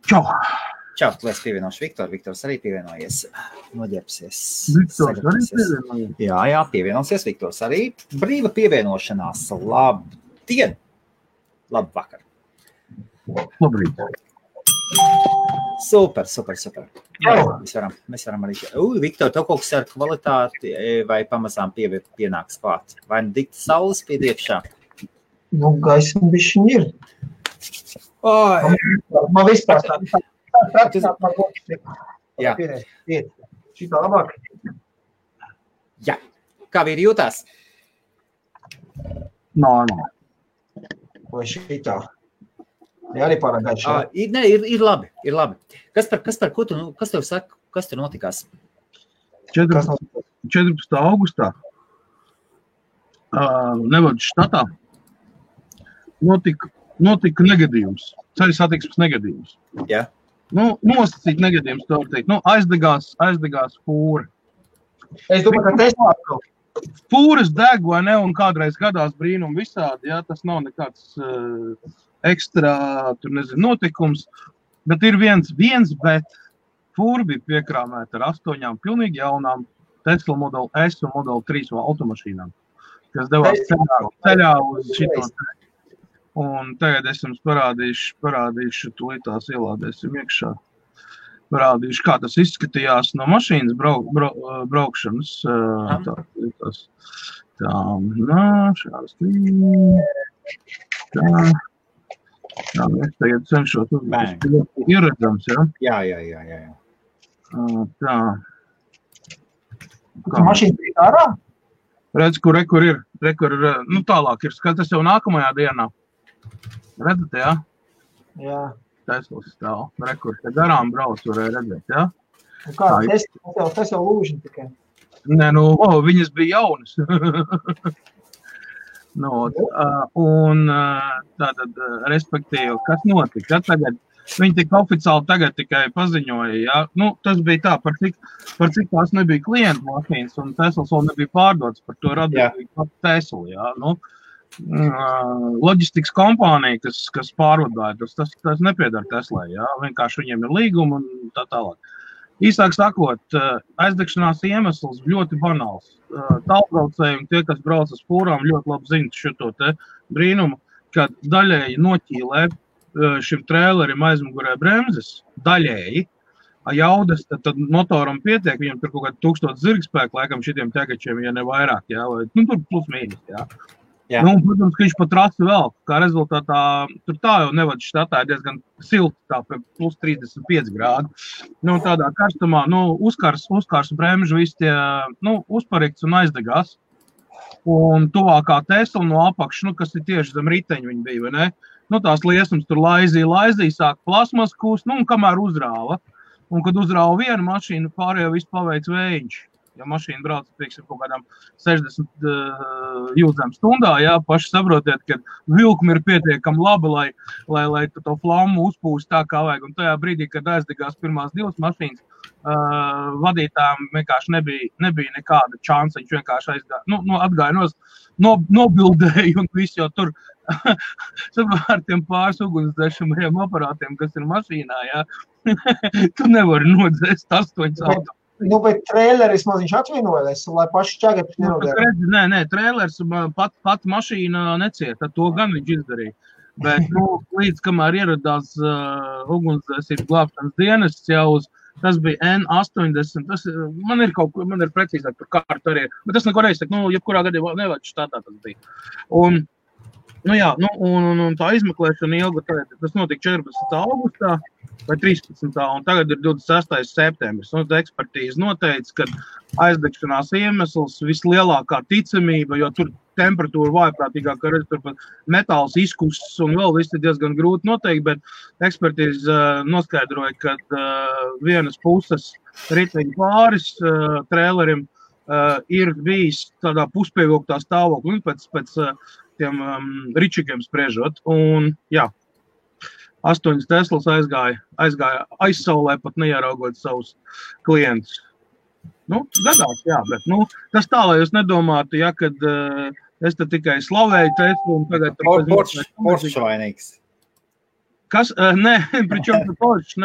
Čau! Čau, tu esi pievienoši Viktor. Viktors arī pievienojies. Noģērbsies. Viktors arī pievienojies? Jā, pievienosies Viktors arī. Brīva pievienošanās. Labdien! Labvakar! Labrīt! Super. Jā, mēs varam arī... Viktor, tev kaut kas ar kvalitāti vai pamazām pienāks klāt? Vai dikta saules piediekšā? Nu, gaisma bišķiņ ir. Man vispār tā. Jā. Šitā labāk. Jā. Kā vīri jūtās? Normāli. Vai šitā? Jā, arī pārāk gaišā. Ir labi. Kas tev saka, kas tur notikās? 14. augustā Nevadas štatā notika negadījums, ceļu satiksmes negadījums. Jā. Nosacīt negadījums, tā var teikt. Aizdegās fūra. Es domāju, ka Tesla atkal. Fūras deg, vai ne, un kādreiz gadās brīnumi visādi, jā, tas nav nekāds ekstra, notikums, bet ir viens, bet fūra bija piekrāmēta ar 8 pilnīgi jaunām Tesla Model S un Model 3 automašīnām, kas devās ceļā uz šito. Un tagad es jums parādīšu, tūlītās ielādēsim iekšā. Parādīšu, kā tas izskatījās no mašīnas braukšanas. Šādas. Tā, es tagad cenšos ieredzams, ja? Jā. Tā. Mašīna bija ārā? Redz, kur ir, tālāk ir, tas jau nākamajā dienā. Redzat, jā? Jā. Teslas stāv. Rekur, te garām brauc, varēja redzēt, jā? Un kā, tas jau lūžņi tikai? Nē, viņas bija jaunas. Tātad, respektīvi, kas notika? Tagad, viņi tik oficiāli tagad tikai paziņoja, jā? Tas bija tā, par cik tās nebija klientu mašīnas, un Teslas vēl nebija pārdots, par to radīja Tesla, jā? Loģistikas kompānija, kas pārvadāja, tas nepiedara Teslai, jā, vienkārši viņiem ir līguma un tā tālāk. Īsāk sakot, aizdegšanās iemesls ļoti banāls. Tālbraucējumi, tie, kas brauc uz fūrām, ļoti labi zina šito te brīnumu, kad daļēji noķīlē šim trēlerim aizmugurē bremzes, daļēji, jaudas, tad motoram pietiek, viņam tur kaut kādi 1000 zirgspēku, laikam šitiem tegačiem, ja ne vairāk, jā, vai, tur plus mīnus, jā. Jā. Protams, ka viņš pat rasi vēl, kā rezultātā, tur tā jau Nevadas štatā ir diezgan silti, tā plus 35 grādi. Tādā karstumā, uzkars bremžu visi tie, uzparikts un aizdegās. Un tuvākā Tesla no apakš, kas ir tieši zem riteņu viņi bija, vai ne? Tās liesums tur laizīja, sāk plasmas kūst, un kamēr uzrāva. Un kad uzrāva vienu mašīnu, pārējo visu paveic vējiņš. Ja mašīna brauc, pieksim, kaut kādām 60 jūdzēm stundā, jā, paši saprotiet, ka vilkumi ir pietiekami labi, lai to flammu uzpūst tā, kā vajag. Un tajā brīdī, kad aizdegās pirmās 2 mašīnas, vadītājiem vienkārši nebija nekāda čansa, viņš vienkārši atgāja nobildēja un viss jau tur ar tiem pāris ugunsdzēšamajiem aparātiem, kas ir mašīnā, jā, tu nevari nodzēst 8 auto. Bet trēleris maziņš atvienojas, lai paši ķēgēpis nenodēja. Nē, trēleris pat mašīna necieta, to gan viņš izdarīja. Bet, līdz kamēr ieradās ugunsdzēsības glābšanas dienests jau tas bija N80, man ir precīzāk par kārtu arī, bet tas neko reizes, jebkurā gadījumā Nevadas štatā tas bija. Un tā izmeklēšana ilga, tas notika 14. augustā vai 13. un tagad ir 26. septembris. Ekspertīze noteica, ka aizdegšanās iemesls vislielākā ticamība, jo tur temperatūra vājprātīgāk, ka tur pat metāls izkusts un vēl viss ir diezgan grūti noteikt, bet ekspertīze noskaidroja, ka vienas puses riteņu pāris trēlerim ir bijis tādā puspievilktā stāvoklī pēc tiem ričigiem spriežot. Un, jā, 8 Teslas aizgāja aizsaulē, pat neieraugot savus klientus. Gadās, jā, bet, tas tā, lai jūs nedomātu, ja, kad es te tikai slavēju Teslu un tagad... Poršu vainīgs. Kas? Nē, pričom tu pošs.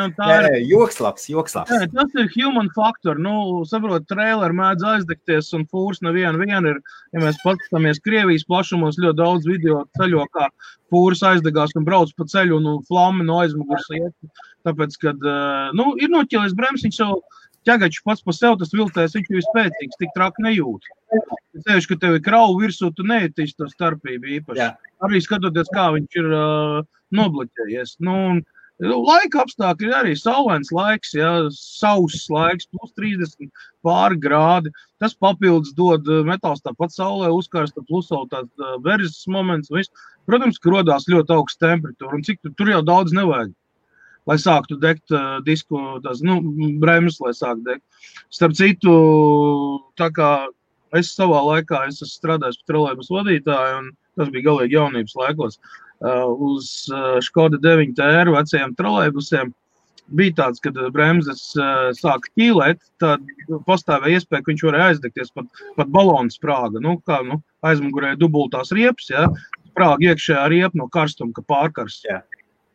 Joks labs. Nē, tas ir human factor. Saprot, traileri mēdz aizdegties un fūrs neviena ir. Ja mēs paskatāmies Krievijas plašumos, ļoti daudz video ceļo, kā fūrs aizdegās un brauc pa ceļu un flammi no aizmugurs iet. Tāpēc, kad ir noķēlies bremsiņš savu ķegaču pats pa sev, tas viltēs, viņš ir spēcīgs, tik traki nejūt. Es tevišu, ka tev ir krauvu virsū, tu neietīsi to starpību īpaši. Jā. Arī skatoties, kā viņš ir nobloķējies. Laika apstākļi ir arī saulains laiks, sauss laiks, plus 30 pāri grādi. Tas papildus dod metāls tāpat saulē uzkarsta, plus vēl tāds verzes moments. Protams, ka rodās ļoti augsts temperatūra, un cik tur jau daudz nevajag, lai sāktu degt disku, bremzes, lai sāktu degt. Starp citu, tā kā es savā laikā esmu strādājis par trolejbus vadītāju, un tas bija galīgi jaunības laikos, uz Škoda 9 TR vecajiem trolejbusiem bija tāds, kad bremzes sāka ķīlēt, tad pastāvēja iespēja, ka viņš varēja aizdegties pat balonu sprāga. Aizmugurē dubultās riepas, sprāga iekšējā riepa no karstuma, ka pārkarsts.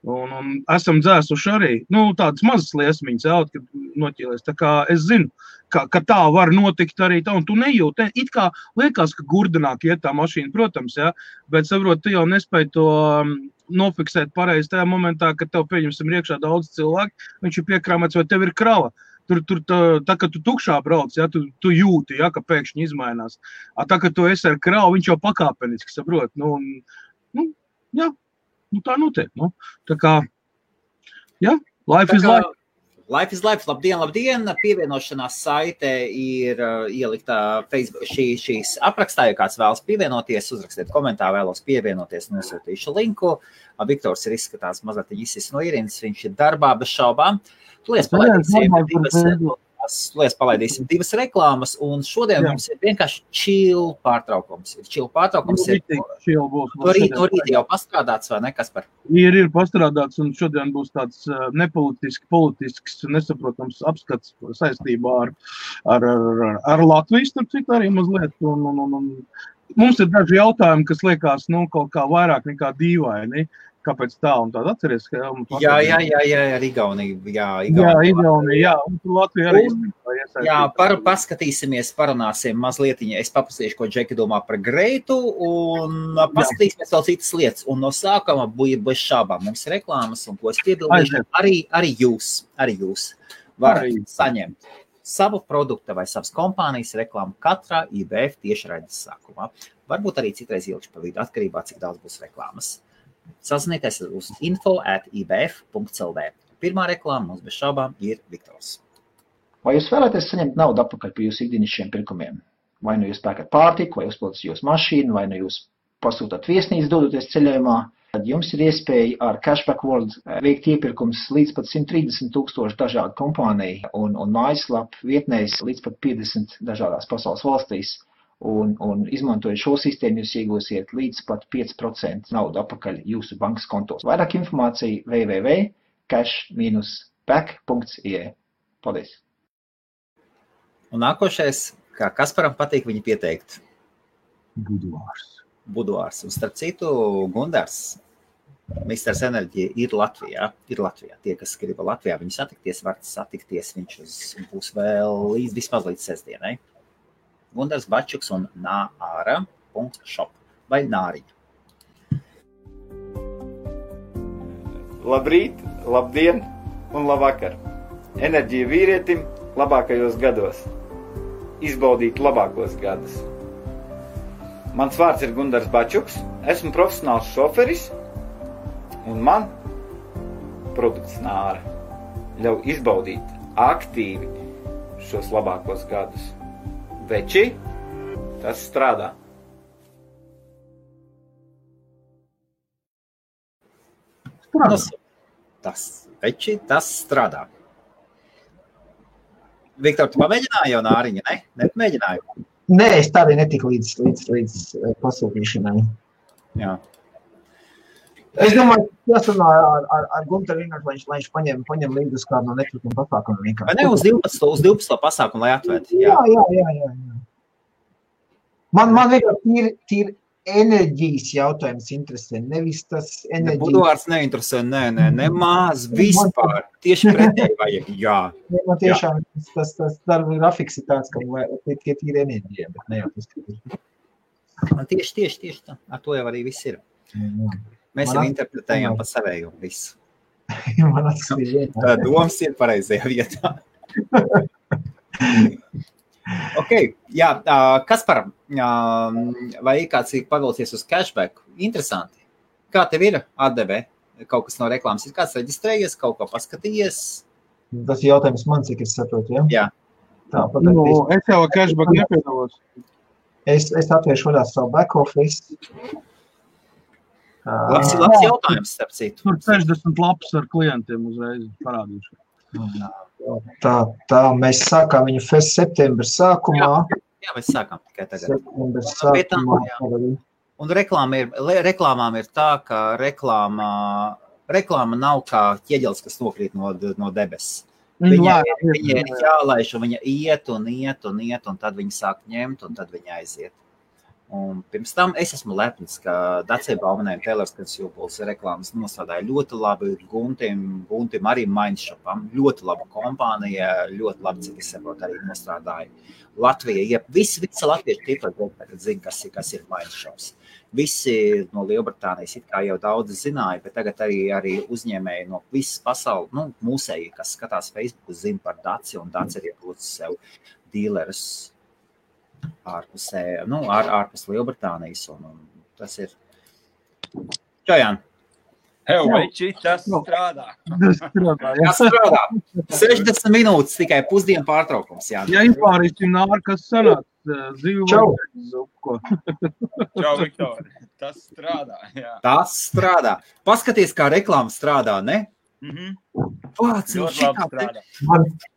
Un esam dzēsuši arī, tādas mazas liesmiņas, kad noķīlies. Tā kā es zinu, ka tā var notikt arī tā, un tu nejūti. It kā liekas, ka gurdenāk iet tā mašīna, protams, bet saprot, tu jau nespēj to nofiksēt pareizi tajā momentā, kad tev pieņemsim iekšā daudz cilvēku, viņš ir piekrāmēts, vai tev ir krava. Tur tā, kad tu tukšā brauc, tu jūti, ka pēkšņi izmainās. Tā, kad tu esi ar kravu, viņš jau pakāpeniski, saprot. Tā notiek. Tā kā, life is life. Life is life. Labdien. Pievienošanās saite ir ieliktā Facebook šīs aprakstā, ja kāds vēlas pievienoties, uzrakstiet komentāru, vēlos pievienoties, nosūtīšu linku. Viktors ir izskatās mazliet izsis no ierindas, viņš ir darbā bez šaubām. Palaidīsim divas reklāmas, un šodien mums ir vienkārši chill pārtraukums. No rīta jau pastrādāts, vai ne, Kaspar? Ir pastrādāts, un šodien būs tāds politisks, nesaprotams apskats saistībā ar Latvijas, starp citu arī mazliet. Un mums ir daži jautājumi, kas liekas, kaut kā vairāk nekā dīvaini. Kāpēc tā un tāda atceries? Jā, Igaunija. Igaunija, un tur Latvija arī. Paskatīsimies, parunāsim mazlietiņa. Es paprasīšu, ko Džeki domā par Greitu, un paskatīsimies vēl citas lietas. Un no sākuma bija bez šābām. Mums ir reklāmas, un ko es piebildīšu, arī jūs varat saņemt savu produktu vai savas kompānijas reklāmu katrā IBF tiešraides sākumā. Varbūt arī citreiz ilgi pa vidu, atkarībā, cik daudz būs reklāmas. Sazinieties uz info@ibf.lv. Pirmā reklāma mums bez šaubām ir Viktors. Vai jūs vēlaties saņemt naudu atpakaļ par jūsu ikdienišķiem pirkumiem? Vai nu jūs pērkat pārtiku, vai uzpildat jūsu mašīnu, vai nu jūs pasūtat viesnīcu dodoties ceļojumā, tad jums ir iespēja ar Cashback World veikt iepirkums līdz pat 130,000 dažādu kompāniju un mājaslapu vietnēs līdz pat 50 dažādās pasaules valstīs. Un izmantojot šo sistēmu, jūs iegūsiet līdz pat 5% naudu atpakaļ jūsu bankas kontos. Vairāk informācija www.cash-back.ie. Paldies! Un nākošais, kā Kasparam patīk viņu pieteikt? Buduārs. Un starp citu, Gundars, Misters Enerģija ir Latvijā. Tie, kas grib Latvijā viņu satikties, var satikties. Viņš būs vēl vismaz līdz sestdienai. Gundars Bačuks un nāra.shop vai nāriņa. Labrīt, labdien un labvakar. Enerģija vīrietim labākajos gados. Izbaudīt labākos gadus. Mans vārds ir Gundars Bačuks, esmu profesionāls šoferis un man produkts nāra ļauj izbaudīt aktīvi šos labākos gadus. Veči, tas strādā. Tas strādā. Viktor, tu pamēģināji jau nāriņa, ne? Nepamēģināju? Nē, es tā arī netiku līdz pasūtīšanai. Jā. Es domāju, jāsarunā ar Gunteru vienkārši, lai viņš paņem līdzi uz kādu no netrukiem pasākumiem vienkārši. Vai ne, uz 12. pasākumu, lai atvērt? Jā. Man vienkārši tīri enerģijas jautājums interesē, nevis tas enerģijas. Buduārs neinteresē, nemaz vispār. Tieši pretēji vajag, jā. Man tiešām tas darba grafiks ir tāds, ka tie tīri enerģija, bet ne jau tas. Tieši tā. Ar to jau arī viss ir. Mēs jau interpretējam pa savēju visu. Man atskatīt. Tā domas ir pareizajā vietā. Ok, jā, Kaspar, vai kāds ir pavilcies uz cashback? Interesanti. Kā tev ir atdeve? Kaut kas no reklāmas ir kāds reģistrējies, kaut ko paskatījies? Tas ir jautājums man, cik es saprotu, ja? Jā. Tā, es jau cashback nepiedalos. Es atvēršu vaļā savu back office. Labs jautājums, starp citu. Tur 60 lapas ar klientiem uzreiz parādīšu. Tā, mēs sākām viņu septembra sākumā. Jā, mēs sākām tikai tagad. Septembra sākumā. Un reklāmām ir tā, ka reklāma nav kā ķieģelis, kas nokrīt no debesis. Viņa ir jālaiž, un viņa iet, un tad viņa sāk ņemt, un tad viņa aiziet. Un pirms tam es esmu lepns, ka Dacia Baumanē Taylors Consumables reklāmas nostādāja ļoti labi Guntim arī Mindshopam, ļoti laba kompānija, ļoti labi, cik es saprotu, arī nostrādāja. Latvija, visi latvieši tīpaši tagad zina, kas ir Mindshops. Visi no Lielbritānijas it kā jau daudz zināja, bet tagad arī uzņēmēji no visas pasaules, mūsēji, kas skatās Facebook, zina par Dacia, un Dacia ir iepūcis sev dīlerus ārpus Lielbritānijas, un tas ir. Čajān. Veči, tas strādā. Tas strādā. 60 minūtes tikai pusdienu pārtraukums. Jā, izpārīsim nāri, kas sanāk. Čau. Čau, Viktor. Tas strādā, jā. Tas strādā. Paskaties, kā reklāma strādā, ne? Pats, ļoti labi strādā.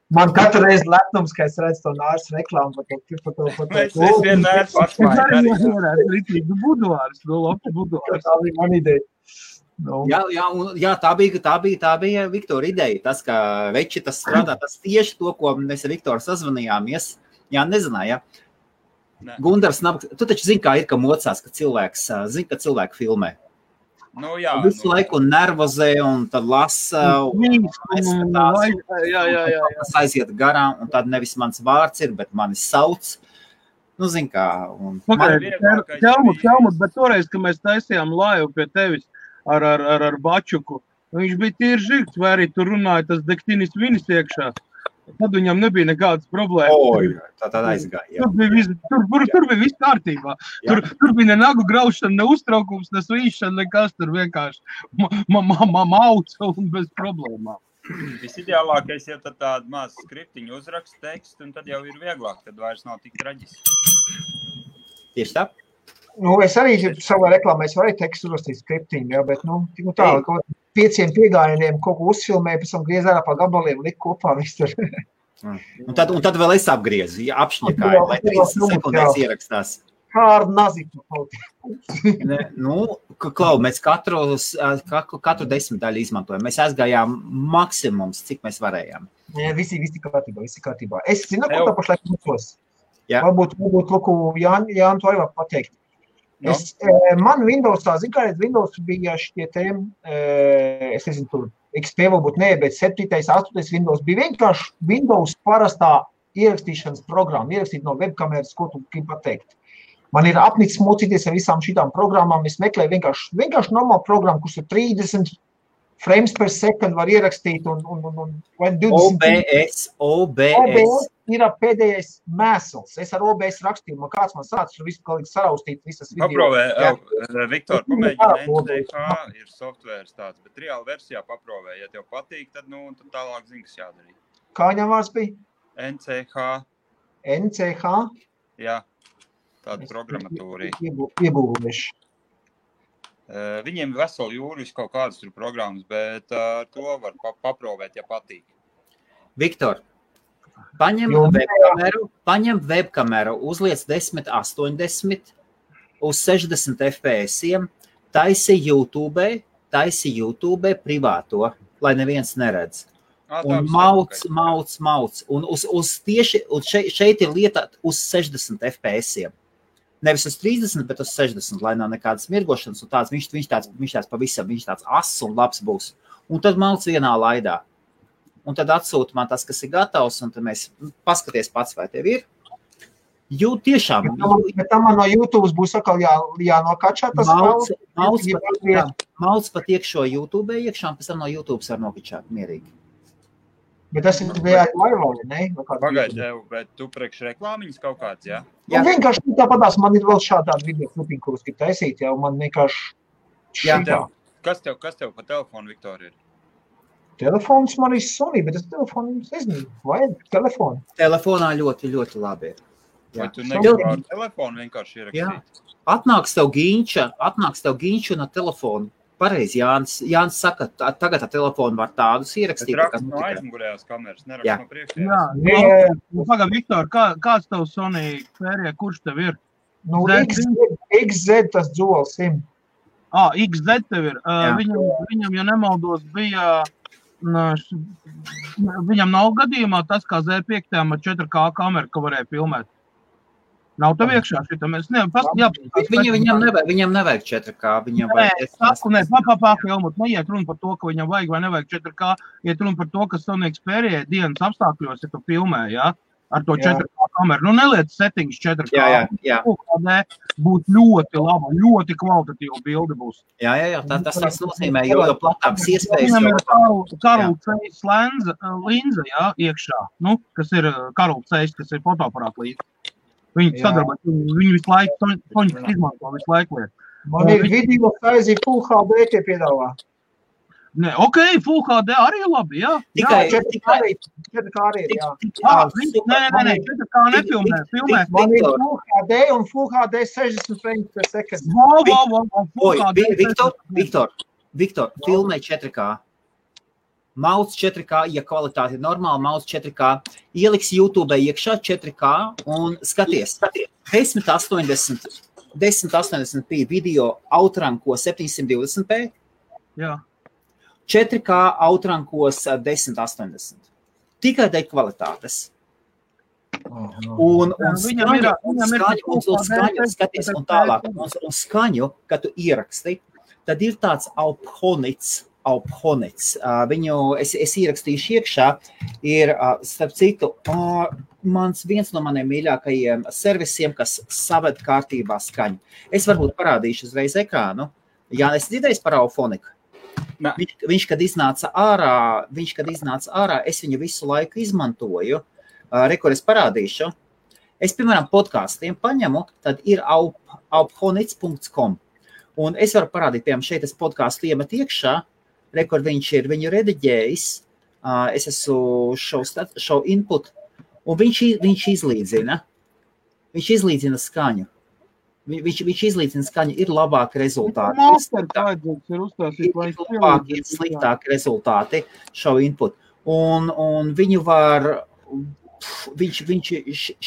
Man katru reizi lepnums, ka es redzu to nārs reklāmu. Es vienmēr pašmāju. Buduārs, labs buduārs. Tā bija man ideja. Jā, tā bija Viktora ideja. Tas, ka veči tas strādā, tas tieši to, ko mēs ar Viktoru sazvanījāmies. Jā, nezināja. Gundars, tu taču zini, kā ir, ka mocās, ka cilvēki filmē. Jā. Visu laiku nervozē un tad lasa un tas aiziet garām, un tad nevis mans vārds ir, bet mani sauc. Zin kā. Ķelmut, bet toreiz, kad mēs taisījām laivu pie tevis ar Bačuku, viņš bija tīri žirgs, vai arī tur runāja tas dektinis vinis iekšā. Tad viņam nebija nekādas problēmas. Tā aizgāja. Tur bija viss kārtībā. Tur bija ne nagu graušana, ne uztraukums, ne svīšana, nekas tur vienkārši mauc un bez problēmām. Visideālākais, ja tad tādu mazu skriptiņu uzrakst tekstu, un tad jau ir vieglāk, tad vairs nav tik traģiski. Tieši tā? Es arī savā reklāmā varu tekstu uzrakstīt skriptiņu, bet tā, kaut 5 piegājieniem kaut ko uzfilmēju, pēc tam griez ārā pa gabaliem, likt kopā visu tur. Un tad vēl es apgriezu, apšņakāju, lai 30 sekundēs ierakstās. Kā ar naziku kaut. Klau, mēs katru 10 daļu izmantojam. Mēs aizgājām maksimums, cik mēs varējām. Visi kārtībā. Es zinu, ko tā pašlaik mūsos. Varbūt Jāni to arī var pateikt. Man Windowsā, Windows bija šitie es nezinu, tur XP varbūt nē, bet 7. 8. Windows bija vienkārši Windows parastā ierakstīšanas programma, ierakstīt no webkameras, ko tu gribi pateikt. Man ir apnicis mocīties ar visām šitām programmām, es meklēju vienkārši normālu programmu, kurš ir 30 frames per second var ierakstīt un 20. OBS ir pēdējais mēsls. Es ar OBS rakstīju, kāds man sācis, visu galīgi saraustīt visas video. Paprovē, Viktor, pamēģina NCH ir softvērs tāds, bet reāli versijā paprovē. Ja tev patīk, tad tālāk zini, kas jādarīt. Kā viņam vārds bija? NCH. NCH? Jā, tāda programmatūra. Iebūvēši. Viņiem veseli jūris kaut kādas tur programmas, bet to var paprovēt, ja patīk. Viktor, paņem webkameru, uzliec 1080 uz 60 FPS-iem, taisi YouTube privāto, lai neviens neredz. Un mauc. Un šeit ir lieta uz 60 FPS-iem. Nevis uz 30, bet uz 60, lai nav nekādas mirgošanas, un tāds, viņš tāds pavisam, viņš tāds ass un labs būs. Un tad malc vienā laidā. Un tad atsūta man tas, kas ir gatavs, un tad mēs paskaties pats, vai tev ir. Jo tiešām. Bet tam man no YouTube būs atkal jānokačā tas malc pat iekšo YouTube iekšā, un pēc tam no YouTube var nokačāt mierīgi. Bet tas ir live, ne? Pagaid, bet tu priekš reklāmiņas kaut kāds, jā? Jā. Vienkārši tāpatās man ir vēl šādā video klipiņa, kurus grib taisīt, jā, un man vienkārši šitā. Kas tev pa telefonu, Viktor, ir? Telefons man ir Sony, bet tas telefons nezinu, vajag telefonu. Telefonā ļoti, ļoti labi ir. Vai tu negribi ar telefonu vienkārši ierakstīt? Atnāks tev ģīņša no telefonu. Pareizi, Jānis saka, tagad ar telefonu var tādus ierakstīt. Bet rakst no aizmugurējās kameras, nerakst no priekšējās. Jā. Pagad, Viktor, kāds tev Sony Xperia, kurš tev ir? Nu, XZ tas Dual SIM. XZ tev ir. Viņam, ja nemaldos, bija... Viņam nav gadījumā tas, kā Z5 ar 4K kameru, ka varēja filmēt. Nav tev iekšā šitā, mēs Viņam nevajag 4K, viņam vajag... Helmut, neiet runa par to, ka viņam vajag vai nevajag 4K, iet runa par to, ka Sony Xperia dienas apstākļos, ja tu filmē, jā, ar to 4K kameru. Nu, neliec settings 4K. Jā. Būs ļoti laba, ļoti kvalitatīva bilde būs. Jā, tas nozīmē, jo platāks iespējas... Viņam ir Karl Zeiss linza, jā, iekšā, kas ir Karl Zeiss, kas ir fotoaparāta līdzi. Viņi sadarbojas, viņi visu laiku, Soņas izmanto visu laiku liet. Man ir video saizī Full HD tie piedāvā. Nē, Full HD arī labi, jā. Tikai 4K arī ir, jā. Nē, 4K nefilmē, filmē. Man ir Full HD un Full HD 60 frames per second. Viktor, filmē 4K. Mauc 4K, ja kvalitāte ir normāla, mauc 4K, ieliks YouTube iekšā 4K un skaties. 1080p video outranko 720p. Jā. 4K outrankos 1080. Tikai dēļ kvalitātes. Un skaņu, skaties, un tālāk, un skaņu, kad tu ieraksti, tad ir tāds Alphonits. Es ierakstīšu iekšā, ir, starp citu, viens no maniem mīļākajiem servisiem, kas saved kārtībā skaņu. Es varbūt parādīšu uzreiz ekrānu. Jā, es dzirdēju par Alphoniku. Viņš, kad iznāca ārā, es viņu visu laiku izmantoju. Kur es parādīšu. Es, piemēram, podkāstiem paņemu, tad ir alphonits.com. Un es varu parādīt, piemēram, šeit es podkāstu iemet iekšā, kur viņš ir viņu rediģējis, es esmu show input, un viņš izlīdzina skaņu. Viņš izlīdzina skaņu, ir labāki rezultāti. Ir sliktāki rezultāti show input. Un viņu var,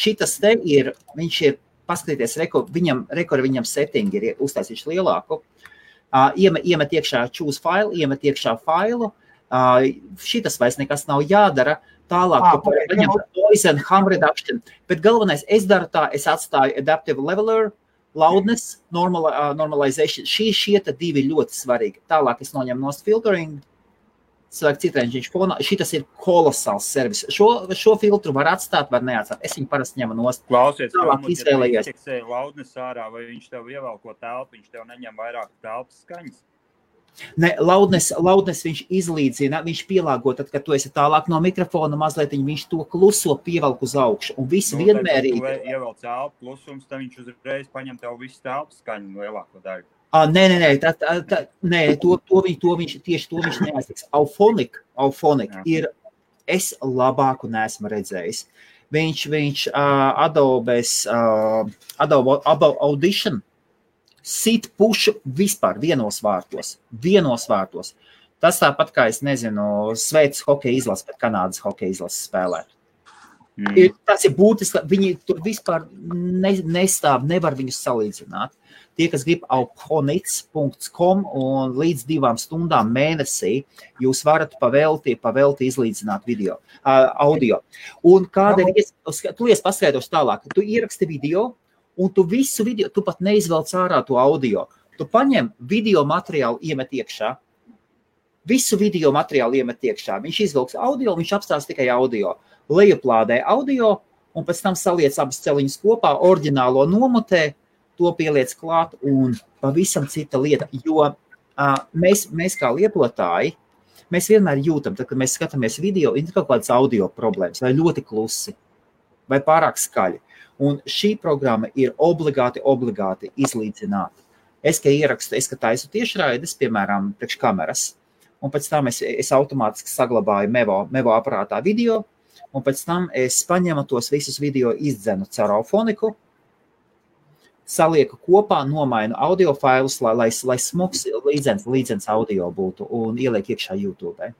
šitas te ir, viņš ir, paskatīties, viņam settingi ir uztaisījuši lielāku. Iemet iekšā choose file, iemet iekšā failu, šitas vairs nekas nav jādara, tālāk paņem noise and hum reduction, bet galvenais, es daru tā, es atstāju adaptive leveler, loudness, normalization, šie divi ļoti svarīgi. Tālāk es noņemu nost filtering, cilvēku citrēņš fonā, šitas ir kolosāls servis. Šo filtru var atstāt, var neatstāt. Es viņu parasti ņemu nost. Klausies, ja indeksēja loudness ārā, vai viņš tev ievelko telpu, viņš tev neņem vairāk telpas skaņas? Ne, loudness viņš izlīdzina, viņš pielāgo, tad, kad tu esi tālāk no mikrofona mazliet, viņš to kluso pievelk uz augšu. Un viss vienmērīgi. Tad, tu ievelc telpu klusums, tad viņš uzreiz paņem tev visu telpas skaņu lielāko daļu. Nē, to viņš neaiztiks. Alphonic ir, es labāku neesmu redzējis. Viņš Adobe Audition sit pušu vispār vienos vārtos. Tas tāpat kā, es nezinu, Šveices hokeja izlases, bet Kanādas hokeja izlases spēlē. Tas ir būtiski, viņi tur vispār nestāv, nevar viņus salīdzināt. Tie, kas grib alphonits.com un līdz 2 stundām mēnesī, jūs varat pavelti izlīdzināt audio. Un kāda ir, tu paskaidroši tālāk, tu ieraksti video, un tu visu video, tu pat neizvelc ārā to audio. Tu paņem video materiālu, iemet iekšā. Visu video materiālu iemet iekšā. Viņš izvilks audio, viņš apstās tikai audio. Lejuplādē audio, un pēc tam saliec abas celiņas kopā, oriģinālo nomotē, to pieliec klāt, un pavisam cita lieta. Jo mēs kā lietotāji, mēs vienmēr jūtam, tad, kad mēs skatāmies video, ir kaut kādas audio problēmas, vai ļoti klusi, vai pārāk skaļi. Un šī programma ir obligāti izlīdzināt. Es, ka taisu tiešraides, piemēram, priekš kameras, un pēc tam es automātiski saglabāju Mevo aparātā video, un pēc tam es paņemu tos visus video izdzenu caur Auphoniku, salieku kopā, nomainu audio failus, lai smuks līdzens audio būtu un ieliek iekšā YouTube.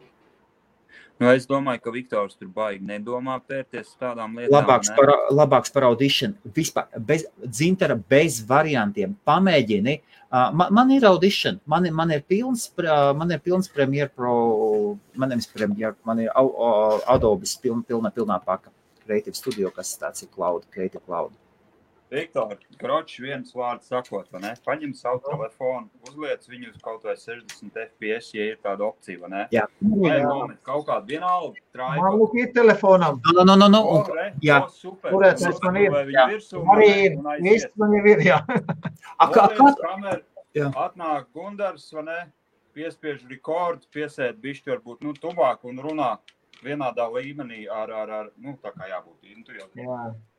Nu, es domāju, ka Viktors tur baigi nedomā pērties tādām lietām. Labāks par Audition. Vispār, dzintara bez variantiem. Pamēģini. Man ir Audition. Man ir pilns Premiere Pro, man ir Adobe's pilnā paka. Creative Studio, kas tāds ir Creative Cloud. Viktor, kročs viens vārds sakot, vai ne? Paņem savu telefonu, uzliec viņu uz kaut vai 60 FPS, ja ir tāda opcija, vai ne? Jā. Vai nomet kaut kādu vienalgu traipu. Man lūk ir telefonam. No. Jā. Super. Kurēt es man ir? Arī ir. Viss man jau ir, jā. Atnāk Gundars, vai ne? Piespiež rekordu, piesēt bišķi varbūt, tuvāk un runā vienādā līmenī ar tā kā jābūt.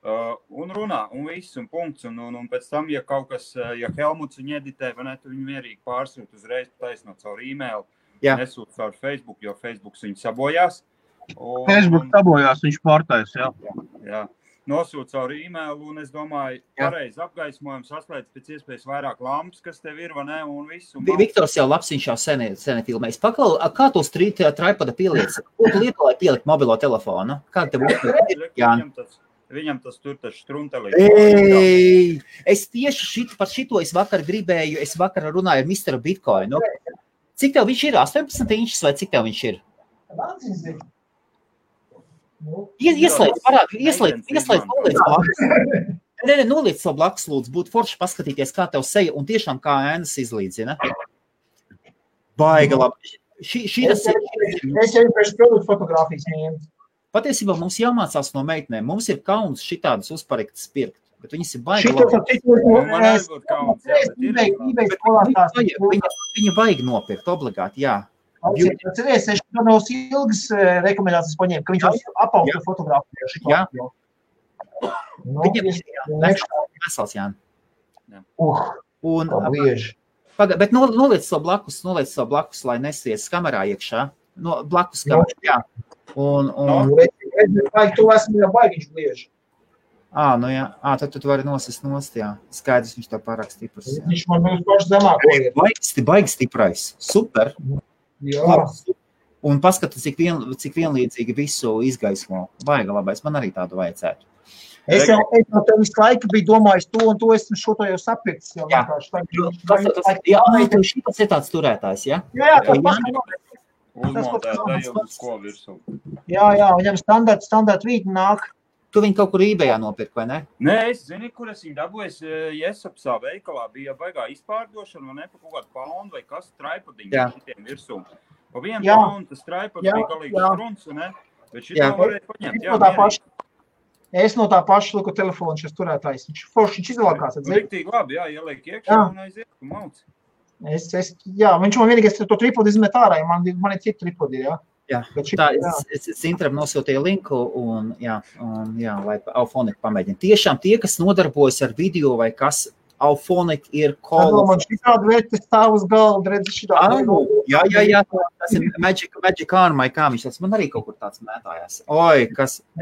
Un runā, un viss, un punkts, un pēc tam, ja kaut kas, ja Helmuts viņu editē, vai ne, tu viņu mierīgi pārsūt uzreiz taisnot caur e-mail, nesūt caur Facebook, jo Facebooks viņu sabojās. Facebook sabojās, viņš pārtais, Jā. Nosūt caur e-mail, un es domāju, pareizi apgaismojums, saslēdz pēc iespējas vairāk lampas, kas tev ir, vai ne, un viss. Viktors jau labs, viņš jau seni filmējis. Paklau, kā tu tripada pieliec? Ko tu lieto, lai pielikt mobilo telefonu? Kā tev Viņam tas tur taču struntelī. Es tieši par šito es vakar runāju ar Mr. Bitcoin. Cik tev viņš ir? 18 inčs vai cik tev viņš ir? Ieslēdz, noliec savu blakus, lūdzu, būtu forši paskatīties, kā tev seja un tiešām kā ēnas izlīdzina. Baiga labi. Es jau pēc produktu fotogrāfijas ņēmu. Patiesībā mums jāmācās no meitnēm. Mums ir kauns šitādas uzparektas pirkt, bet viņas ir baigi labi. Viņa baigi nopirkt, obligāti, jā. Cerēs, es no ilgas rekomendācijas paņēmu, ka viņš apausta fotogrāfiju. Jā. Viņam ir vesels, jā. Bet noliec savu blakus, lai nesies kamerā iekšā. Blakus kamerā, jā. Tu esmu jau baigiņš glieži. Jā. Tad tu vari nosist nost, jā. Skaidrs, viņš tev pārāk stiprs. Viņš man būs paši zemāko ir. Baigi stiprais. Super. Jā. Un paskatās, cik vienlīdzīgi visu izgaismo. Baiga labais. Man arī tādu vajadzētu. Es jau tev visu laiku biju domājis to un to, esmu šo to jau sapirkts. Jā, šitas ir tāds turētājs, jā? Jā, Uzmontēt uz ko virsū. Jā, viņam standarta vīti nāk. Tu viņu kaut kur eBayā nopirk, vai ne? Nē, es zini, kur es viņu dabūju. Jesapsā veikalā bija baigā izpārdošana, vai ne, pa kaut kādu poundu vai kas traipadiņu šitiem virsū. Pa vienu poundu tas traipad bija galīgi struns, ne? Bet šito varēja paņemt. Es no tā paša liku telefonu šis turētājs. Viņš izvēlākās. Riktīgi labi, ieliek iekšā un aiziet, un mauc. Viņš man vienīgais to tripodi izmet ārā, man ir citi tripodi, jā. Jā, es Zintram nosūtīju linku un lai Auphonic pamēģina. Tiešām tie, kas nodarbojas ar video vai kas, Auphonic ir Man šitādi vērti stāv uz galda, redzi šitādi. Jā, tas ir Magic Arm, vai kā viņš tāds, man arī kaut kur tāds mētājās.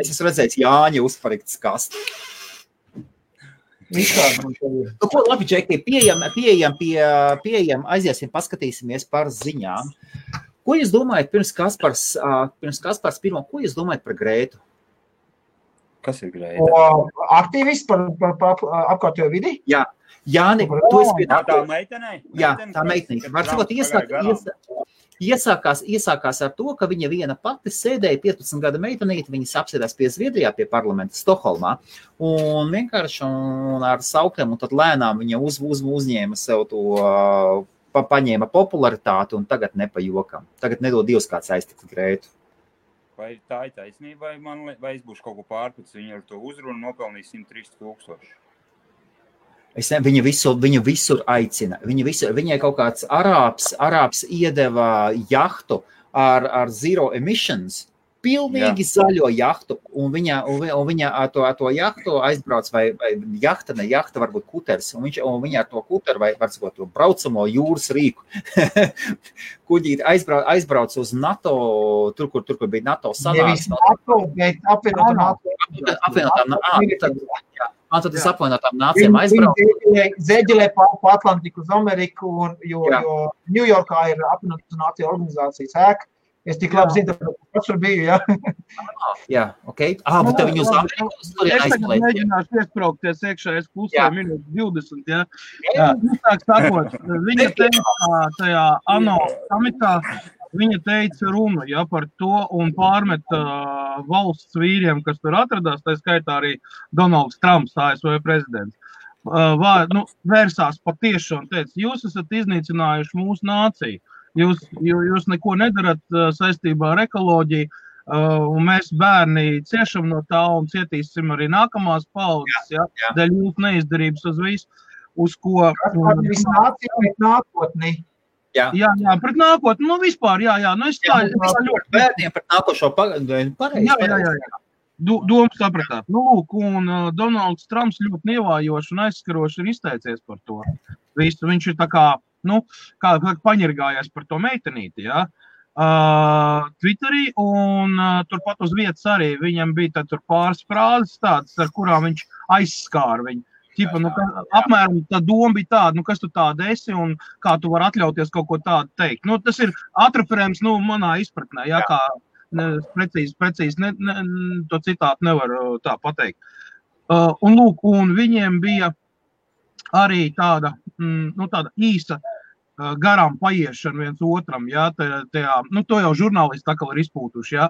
Es esmu redzējis Jāņa uzpariktas kastu. Ko labi, Džeki, pieejam, aiziesim, paskatīsimies par ziņām. Ko jūs domājat pirms Kaspars pirmo, ko jūs domājat par Grētu? Kas ir Grēta? Aktīvists par apkārtējo vidi? Jā. Jāni, tu esi pie tā meitenei? Jā, tā meitenei. Var sakot, Iesākās ar to, ka viņa viena pati sēdēja 15 gada meitenīti, viņas apsēdās pie Zviedrijā, pie parlamenta Stokholmā, un vienkārši ar saukiem, un tad lēnām viņa uzņēma sev to, paņēma popularitāti, un tagad ne pa jokam. Tagad nedod Dievs kāds aiztikt Greitu. Vai tā ir taisnība, vai es būšu kaut ko pārpats, viņa ar to uzrunu nopelnīja 130 000? Viņu visur aicina. Viņai kaut kāds arābs iedeva jahtu ar zero emissions, pilnīgi zaļo jahtu, un viņa ar to jahtu aizbrauc, vai jahta, varbūt kuters, un viņa ar to kuteru, vai var sakot, to braucamo jūras rīku, kuģīt aizbrauc uz NATO, tur, kur bija NATO sanāks. Nevis NATO, bet apvienotām NATO. Tad es apvienotām nācijām aizbrauc. Zeģelē pa Atlantiku uz Ameriku, jo Ņujorkā ir apvienotā nācija organizācijas ēka. Es tik labi zinu, ka pats tur biju, jā. Jā, okei. Bet tev viņu uz Ameriku turien aizplēt. Es tagad mēģināšu iespraukties iekšā, es pusē minūtes 20, jā. Tā sakot, viņa teica tajā ANO samitā, viņa teica runu, jā, par to un pārmeta valsts vīriem, kas tur atradās, tā skaitā arī Donalds Trumps, ASV prezidents. Vērsās patieši un teica, jūs esat iznīcinājuši mūsu nāciju. Jūs neko nedarat saistībā ar ekoloģiju, un mēs bērni ciešam no tā un cietīsim arī nākamās paudzes, dēļ jūsu neizdarības uz visu, uz ko... Viss nācija pret nākotni. Jā, pret nākotni, vispār, es tā ļoti... Bērniem pret nākošo pareizi. Jā. Domu sapratāt. Lūk, un Donalds Trumps ļoti nievājoši un aizskaroši ir izteicies par to. Visu, viņš ir tā kā paņirgājās par to meitenīti, jā, Twitterī, un turpat uz vietas arī viņam bija tur pāris frāzes tādas, ar kurām viņš aizskāra viņu. Apmēram tā doma bija tāda, kas tu tāda esi un kā tu vari atļauties kaut ko tādu teikt. Tas ir atreferējums, manā izpratnē, jā, kā precīzi to citātu nevaru tā pateikt. Un lūk, un viņiem bija arī tāda īsa garām paiešana viens otram, jā, to jau žurnālisti tā kā ir izpūtuši, jā,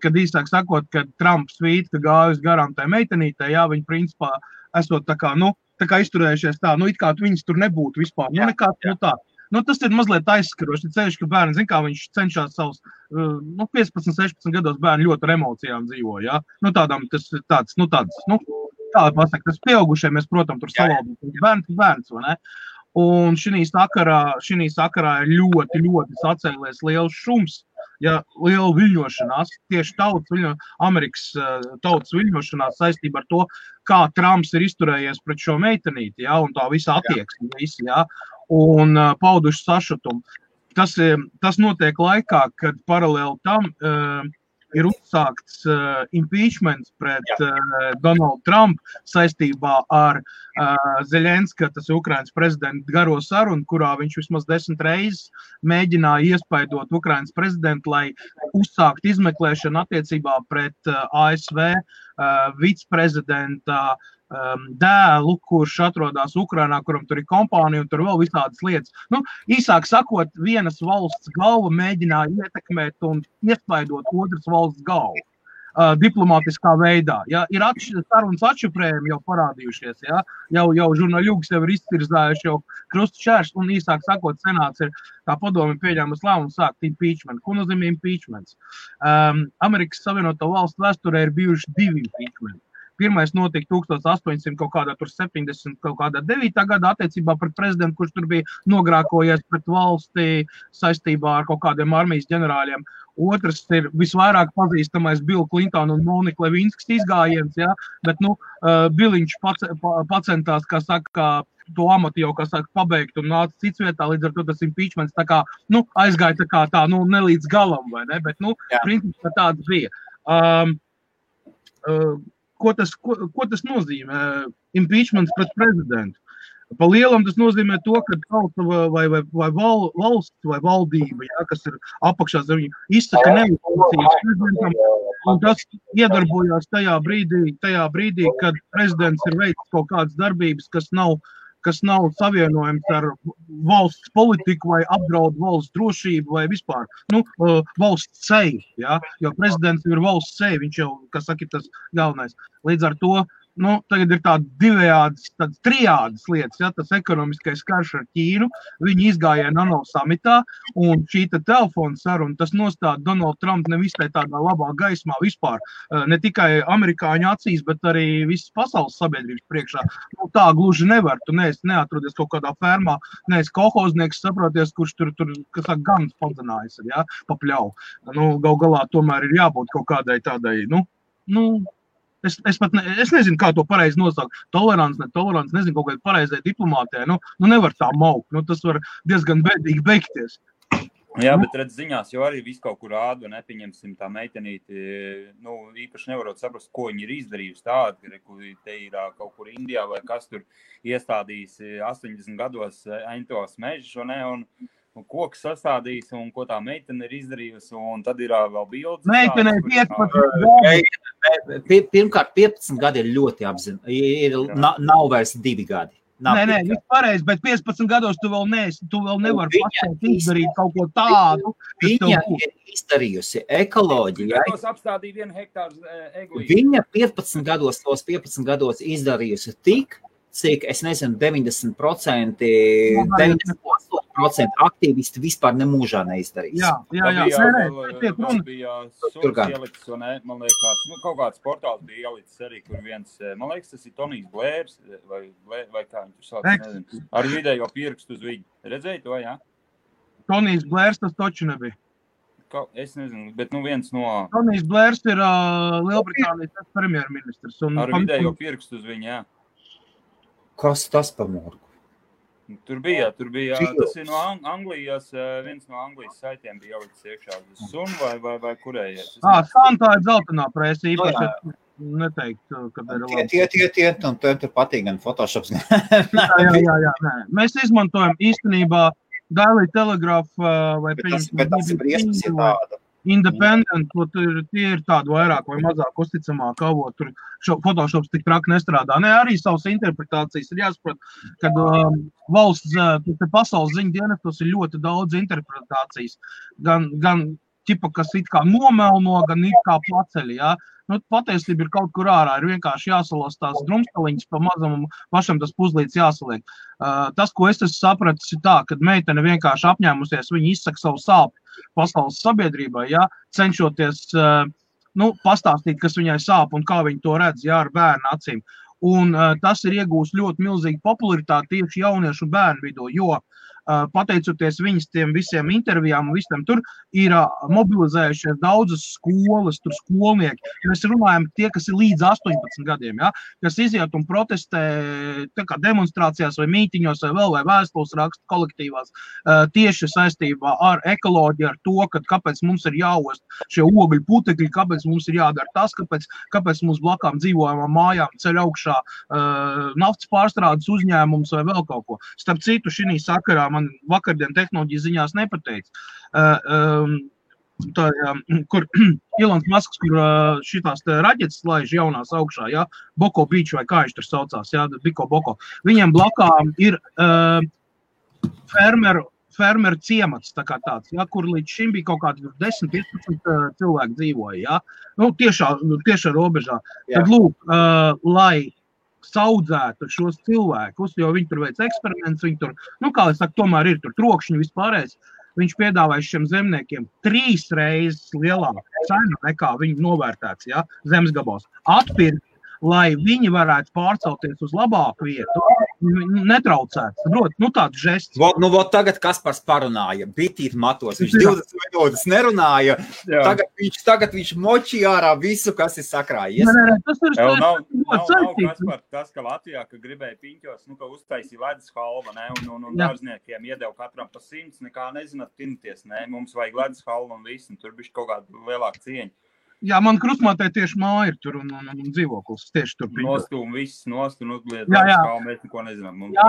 kad īsāk sakot, kad Trumps svīt, ka gājusi garām tai meitenītei, jā, viņi principā esot tā kā izturējušies tā, it kā viņas tur nebūtu vispār, tā. Tas ir mazliet aizskaroši, ceļš, ka bērni, zin kā viņš cenšās savus, 15-16 gados bērni ļoti ar emocijām dzīvo, jā, tādām tas ir tāds, tā pasaka, tas pieaugušie, mēs, protams, tur savaldīt, bērns, vai ne? Un šī sakarā ir ļoti, ļoti sacēlies liels šums, ja liela viļņošanās, tieši Amerikas tautas viļņošanās saistībā ar to, kā Trumps ir izturējies pret šo meitenīti, ja, un tā visa attieksme, ja, un pauduši sašutumu. Tas notiek laikā, kad paralēli tam ir uzsākts impeachments pret Donaldu Trumpu saistībā ar Zeļenska, tas ir Ukrainas prezidenta garo sarunu, kurā viņš vismaz 10 reizes mēģināja iespaidot Ukrainas prezidentu, lai uzsākt izmeklēšanu attiecībā pret ASV viceprezidenta dēlu, kurš atrodas Ukrainā, kuram tur ir kompānija un tur vēl visādas lietas. Īsāk sakot, vienas valsts galva mēģināja ietekmēt un iespaidot otras valsts galvu diplomātiskā veidā. Ja, ir sarunas atšifrējumi jau parādījušies, ja, jau žurnāļūgas jau ir izcirzājuši jau krustu šērš, un īsāk sakot, senāts ir tā padomi pieņēmas lēmumu sākt impeachment. Ko nozīmē impeachments? Amerikas Savienoto Valstu vēsturē ir bijuši 2 impeachmenti. Pirmais notika 1800 kaut kādā tur 70 kaut kādā 9. gadā attiecībā pret prezidentu, kurš tur bija nogrākojies pret valsti saistībā ar kaut kādiem armijas ģenerāļiem. Otrs ir visvairāk pazīstamais Bill Clinton un Monika Levinskas izgājiens, ja, bet, Biliņš pacentās, kā saka, to amatu jau, kā saka, pabeigt un nāca cits vietā, līdz ar to tas impeachments tā kā, aizgāja tā kā tā, ne līdz galam, vai ne, bet, principā tāds bija. Ko tas nozīmē? Impeachments pret prezidentu. Pa lielam tas nozīmē to, ka tauta vai valsts vai valdība, ja, kas ir apakšā zem viņu, izsaka neuzticības prezidentam, un tas iedarbojās tajā brīdī, kad prezidents ir veicis kaut kādas darbības, kas nav kas nav savienojams ar valsts politiku vai apdraud valsts drošību vai vispār, valsts seju, ja? Jo prezidents ir valsts seja, viņš jau, kas saka, ir tas galvenais. Līdz ar to, tagad ir tādas divējādas, tādas trijādas lietas, ja, tas ekonomiskais karš ar Ķīnu, viņi izgāja ANO samitā, un šī telefona saruna, tas nostāda Donaldu Trumpu nevisai tādā labā gaismā vispār, ne tikai amerikāņu acīs, bet arī visas pasaules sabiedrības priekšā. Tā gluži nevar, tu neatrodies kaut kādā fermā, neesi kolhoznieks, saproties, kurš tur kas saka, ganas padzenājas, ja, papļau. Gal galā tomēr ir jābūt kaut kādai tādai, Es nezinu, kā to pareizi nosaukt. Tolerants, netolerants, nezinu, kaut kādā pareizai diplomātē. Nevar tā maukt. Tas var diezgan bēdīgi beigties. Jā, bet redz ziņās, jo arī visu kaut kur rāda, nepieņemsim tā meitenīti, īpaši nevarot saprast, ko viņi ir izdarījusi tādi, kur te ir kaut kur Indijā vai kas tur iestādījis 80 gados Aintovas mežus, un koks sastādījis, un ko tā meitene ir izdarījusi, un tad ir vēl bildes. Meitene 15 gadi. Pirmkārt, 15 gadi ir ļoti nav vairs 2 gadi. Nē, viss pareizi, bet 15 gados tu vēl nevari pašai izdarīt kaut ko tādu. Viņa ir izdarījusi ekoloģijai. Gados apstādīja 1 hektāru eglīti. Viņa 15 gados izdarījusi tik, cik, es nezinu, 90% aktīvisti vispār nemūžā neizdarīs. Jā. Tas bija suns ielicis, man liekas, kaut kāds portāls bija ielicis arī, kur viens, man liekas, tas ir Tonijs Blērs, vai kā viņš tur sauc, nezinu, ar vidējo pirkstu uz viņu. Redzēji to, jā? Tonijs Blērs tas toči nebija. Es nezinu, bet viens no... Tonijs Blērs ir Lielbritānijas premjerministrs. Ar vidējo pirkstu uz viņu, jā. Kas tas pa morgu? Tur bija, tas ir no Anglijas, viens no Anglijas saitiem bija ielicis iekšā. Sun vai kurējies? Tā ir dzeltenā presa, īpaši neteikt, kad ir labi. Un tur patīk gan Photoshops. Jā. Mēs izmantojam īstenībā Daily Telegraph vai bet tas ir briesmas, ja tāda. Independent, tie ir tādi vairāk vai mazāk uzticamāk avot, tur Photoshops tik traki nestrādā. Arī savas interpretācijas ir jāsaprot, kad valsts, pasaules ziņu dienestos ir ļoti daudz interpretācijas, gan ķipa, kas it kā nomelno, gan it kā paceļ, jā. Patiesība ir kaut kur ārā, ir vienkārši jāsalas tās drumstaliņas pa mazam un pašam tas puzlīts jāsaliek. Tas, ko es esmu sapratis, ir tā, kad meitene vienkārši apņēmusies, viņa izsaka savu sāpi pasaules sabiedrībai, ja, cenšoties pastāstīt, kas viņai sāp un kā viņa to redz, ja, ar bērnu acīm. Un tas ir iegūst ļoti milzīgu popularitāti tieši jauniešu un bērnu vidū, jo pateicoties viņas tiem visiem intervijām un visam tur ir mobilizējušies daudzas skolas, tur skolnieki. Mēs runājam tie, kas ir līdz 18 gadiem, ja, kas iziet un protestē tā kā demonstrācijās vai mītiņos vai vēstules raksta kolektīvās tieši saistībā ar ekoloģiju, ar to, kāpēc mums ir jāost šie ogļu putekļi, kāpēc mums ir jādara tas, kāpēc mums blakām dzīvojamām mājām ceļ augšā naftas pārstrādes uzņēmums vai vēl kaut ko. Starp citu, šī sakarā man vakardien tehnoloģijas ziņās nepateica, kur Ilons Masks, kur šitās raķetes laiž jaunās augšā, ja, Boko Beach vai kā viņš tur saucās, ja, Biko. Viņiem blakām ir fermeru ciemats, tā kā tāds, ja, kur līdz šim bija kaut kādi 10-15 cilvēki dzīvoja, ja, tiešā robežā. Tad lūk, lai saudzētu šos cilvēkus, jo viņi tur veic eksperiments, viņi tur, kā es saku, tomēr ir tur trokšņi vispārējais, viņš piedāvāja šiem zemniekiem 3 reizes lielāku cenu nekā viņi novērtēts, ja, zemes gabals. Atpirkt, lai viņi varētu pārcelties uz labāku vietu, netraucēt. Tāds žests. Tagad Kaspars parunāja, bitīt matos, viņš 20 minūtes nerunāja, tagad viņš močīja ārā visu, kas ir sakrājies. Tas ir Kaspar, tas, ka Latvijā, ka gribēja piņķos, ka uztaisīja ledus halva, un dārzniekiem iedeva katram pa 100, nekā nezināt tinties, mums vajag ledus halva un viss, un tur bišķi kaut kāda lielāka cieņa. Jā, man krustmātē tieši māja ir tur un dzīvoklis tieši tur. Nostūm viss, uzliet, mēs neko nezinām. Jā,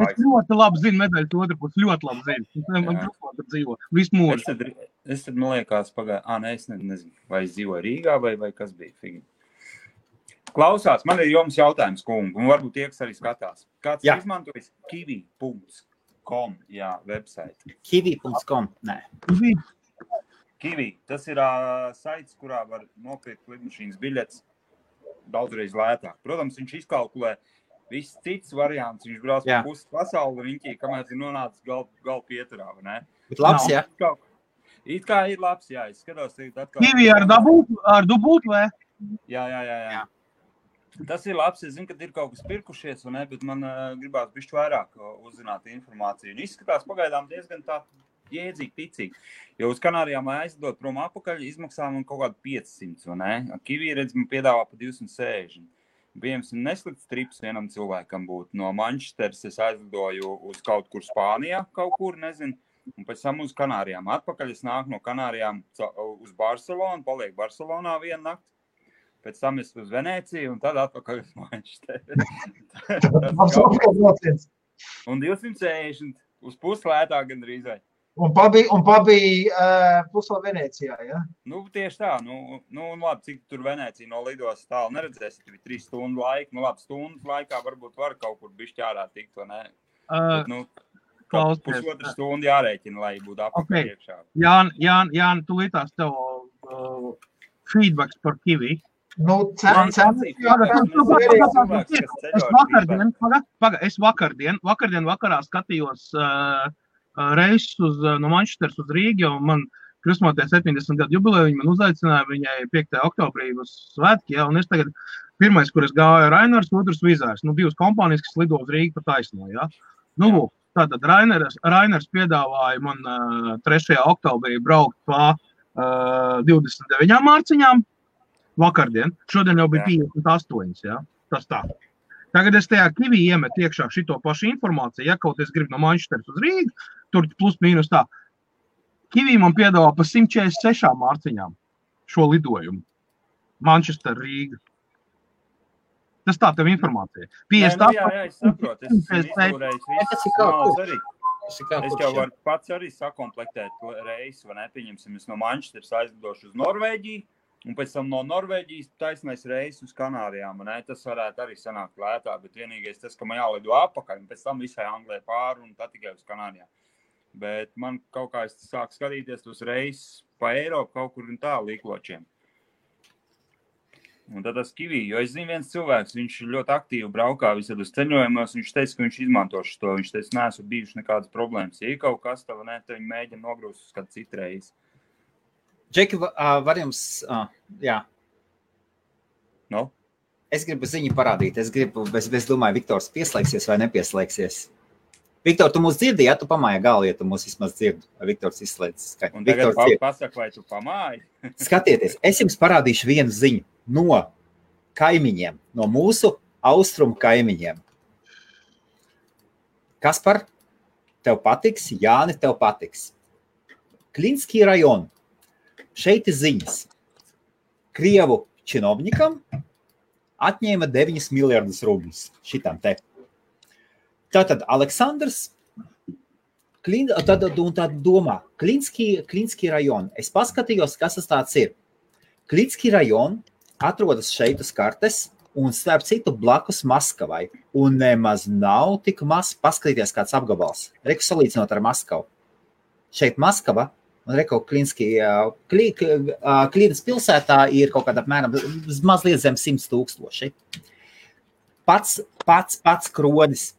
es ļoti labi zinu medaļas otru pusi, ļoti labi zinu. Man krustmāte dzīvo, visu mūžu. Es tad, man liekas, es nezinu, vai es dzīvoju Rīgā vai kas bija figi. Klausās, man ir jums jautājums, kungi, un varbūt tie, kas arī skatās. Kāds izmantojis kiwi.com, website? Kiwi.com, nē. Kiwi, tas ir saits, kurā var nopirkt lidmašīnas biļetes daudzreiz lētāk. Protams, viņš izkalkulē viss cits variants, viņš brauc par pusi pasauli riņķī, kamēr ir nonācis gal pieturā, vai ne? Bet labs, jā? It kā ir labs, jā, es skatos atkal. Kiwi ar dubult, vai? Jā. Tas ir labs, es zinu, ka ir kaut kas pirkušies, vai ne, bet man gribās bišķi vairāk uzzināt informāciju. Un izskatās pagaidām diezgan tā jēdzīgi, ticīgi. Jo uz Kanārijām, lai aizdot prom apakaļ, izmaksā man kaut kādu 500, vai ne? Kiwi, redz, man piedāvā pa 260. Piemēram, neslikts trips vienam cilvēkam būtu. No Manchesteras es aizlidoju uz kaut kur Spānijā, kaut kur, nezinu, un pēc tam uz Kanārijām. Atpakaļ es nāku no Kanārijām uz Barcelonu, palieku Barcelonā vienu nakti. Pēc tam es uz Venēciju un tad atpakaļ uz Manchesteru. Un 260 uz puslētāk gandrīz. Un pabija pusla Venēcijā, ja? Nu, tieši tā. Nu, labi, cik tur Venēcija no lidos tālu neredzēs, tur ir 3 stundu laika. Nu, labi, stundas laikā varbūt var kaut kur bišķi ārā tikt, vai ne? Bet, kaut pusotru stundu jārēķina, lai būtu apakaļ iekšā. Jāni, tu lītās tev feedbacks par Kiwi. Es vakardien vakarā skatījos reisus no Manchesteras uz Rīgu, jo man kristmotē 70 gadu jubileju, viņi man uzaicināja viņai 5. oktobrī uz svētki, un es tagad pirmais, kur es gāju Rainers, otrs Vizārs, divas kompānijas, kas lido uz Rīgu pa taisno, ja. Tātad Rainers piedāvāja man 3. oktobrī braukt pa 29 mārciņām vakardien, šodien jau bija 58, ja, tas tā. Tagad es tajā Kiwi iemetu iekšā šito pašu informāciju, ja kaut es gribu no Manchesteras uz Rīgu, tur plus mīnus tā. Kiwi man piedāvā pa 146 mārciņām šo lidojumu. Manchester, Rīga. Tas tā tev informācija. Jā, es saprotu. Es jau varu pats arī sakomplektēt reisu, vai nepieņemsim, es no Manchesteras aizlidošu uz Norvēģiju, un pēc tam no Norvēģijas taisnais reis uz Kanārijām, un tas varētu arī sanākt lētāk, bet vienīgais tas, ka man jālido apakaļ, un pēc tam visai Anglijai pāri, un tad tikai uz Kanārijām. Bet man kaut kā es sāku skatīties tos reisus pa Eiropu kaut kur un tā līkločiem. Un tad tas Kiwi, jo es zinu viens cilvēks, viņš ļoti aktīvi braukā visādos ceļojumos, viņš teica, ka viņš izmantošu to, viņš teica, neesmu bijuši nekādas problēmas. Ja ir kaut kas tā, vai ne, tad viņi mēģina nogrūst uz kādu citu reizi. Džeki, var jums, jā. No? Es gribu ziņu parādīt, es domāju, Viktors pieslēgsies vai nepieslēgsies. Viktor, tu mūs dzirdi, ja tu pamāji galvu, ja tu mūs vismaz dzirdi, vai Viktors izslēdz skaņu. Un tagad pasaka, vai tu pamāji? Skatieties, es jums parādīšu vienu ziņu no kaimiņiem, no mūsu austrumu kaimiņiem. Kaspar, tev patiks, Jāni, tev patiks. Klinskī rajonu. Šeit ir ziņas. Krievu činovnikam atņēma 9 miljardus rubļus šitam te. Tātad Aleksandrs, tad domā, Klinskī rajonu. Es paskatījos, kas tas tāds ir. Klinskī rajonu atrodas šeit uz kartes un starp citu blakus Maskavai. Un nemaz nav tik maz, paskatīties kāds apgabals. Reku salīdzinot ar Maskavu. Šeit Maskava un reku Klīnas pilsētā ir kaut kādā apmēram mazliet zem 100 000. Pats kronis.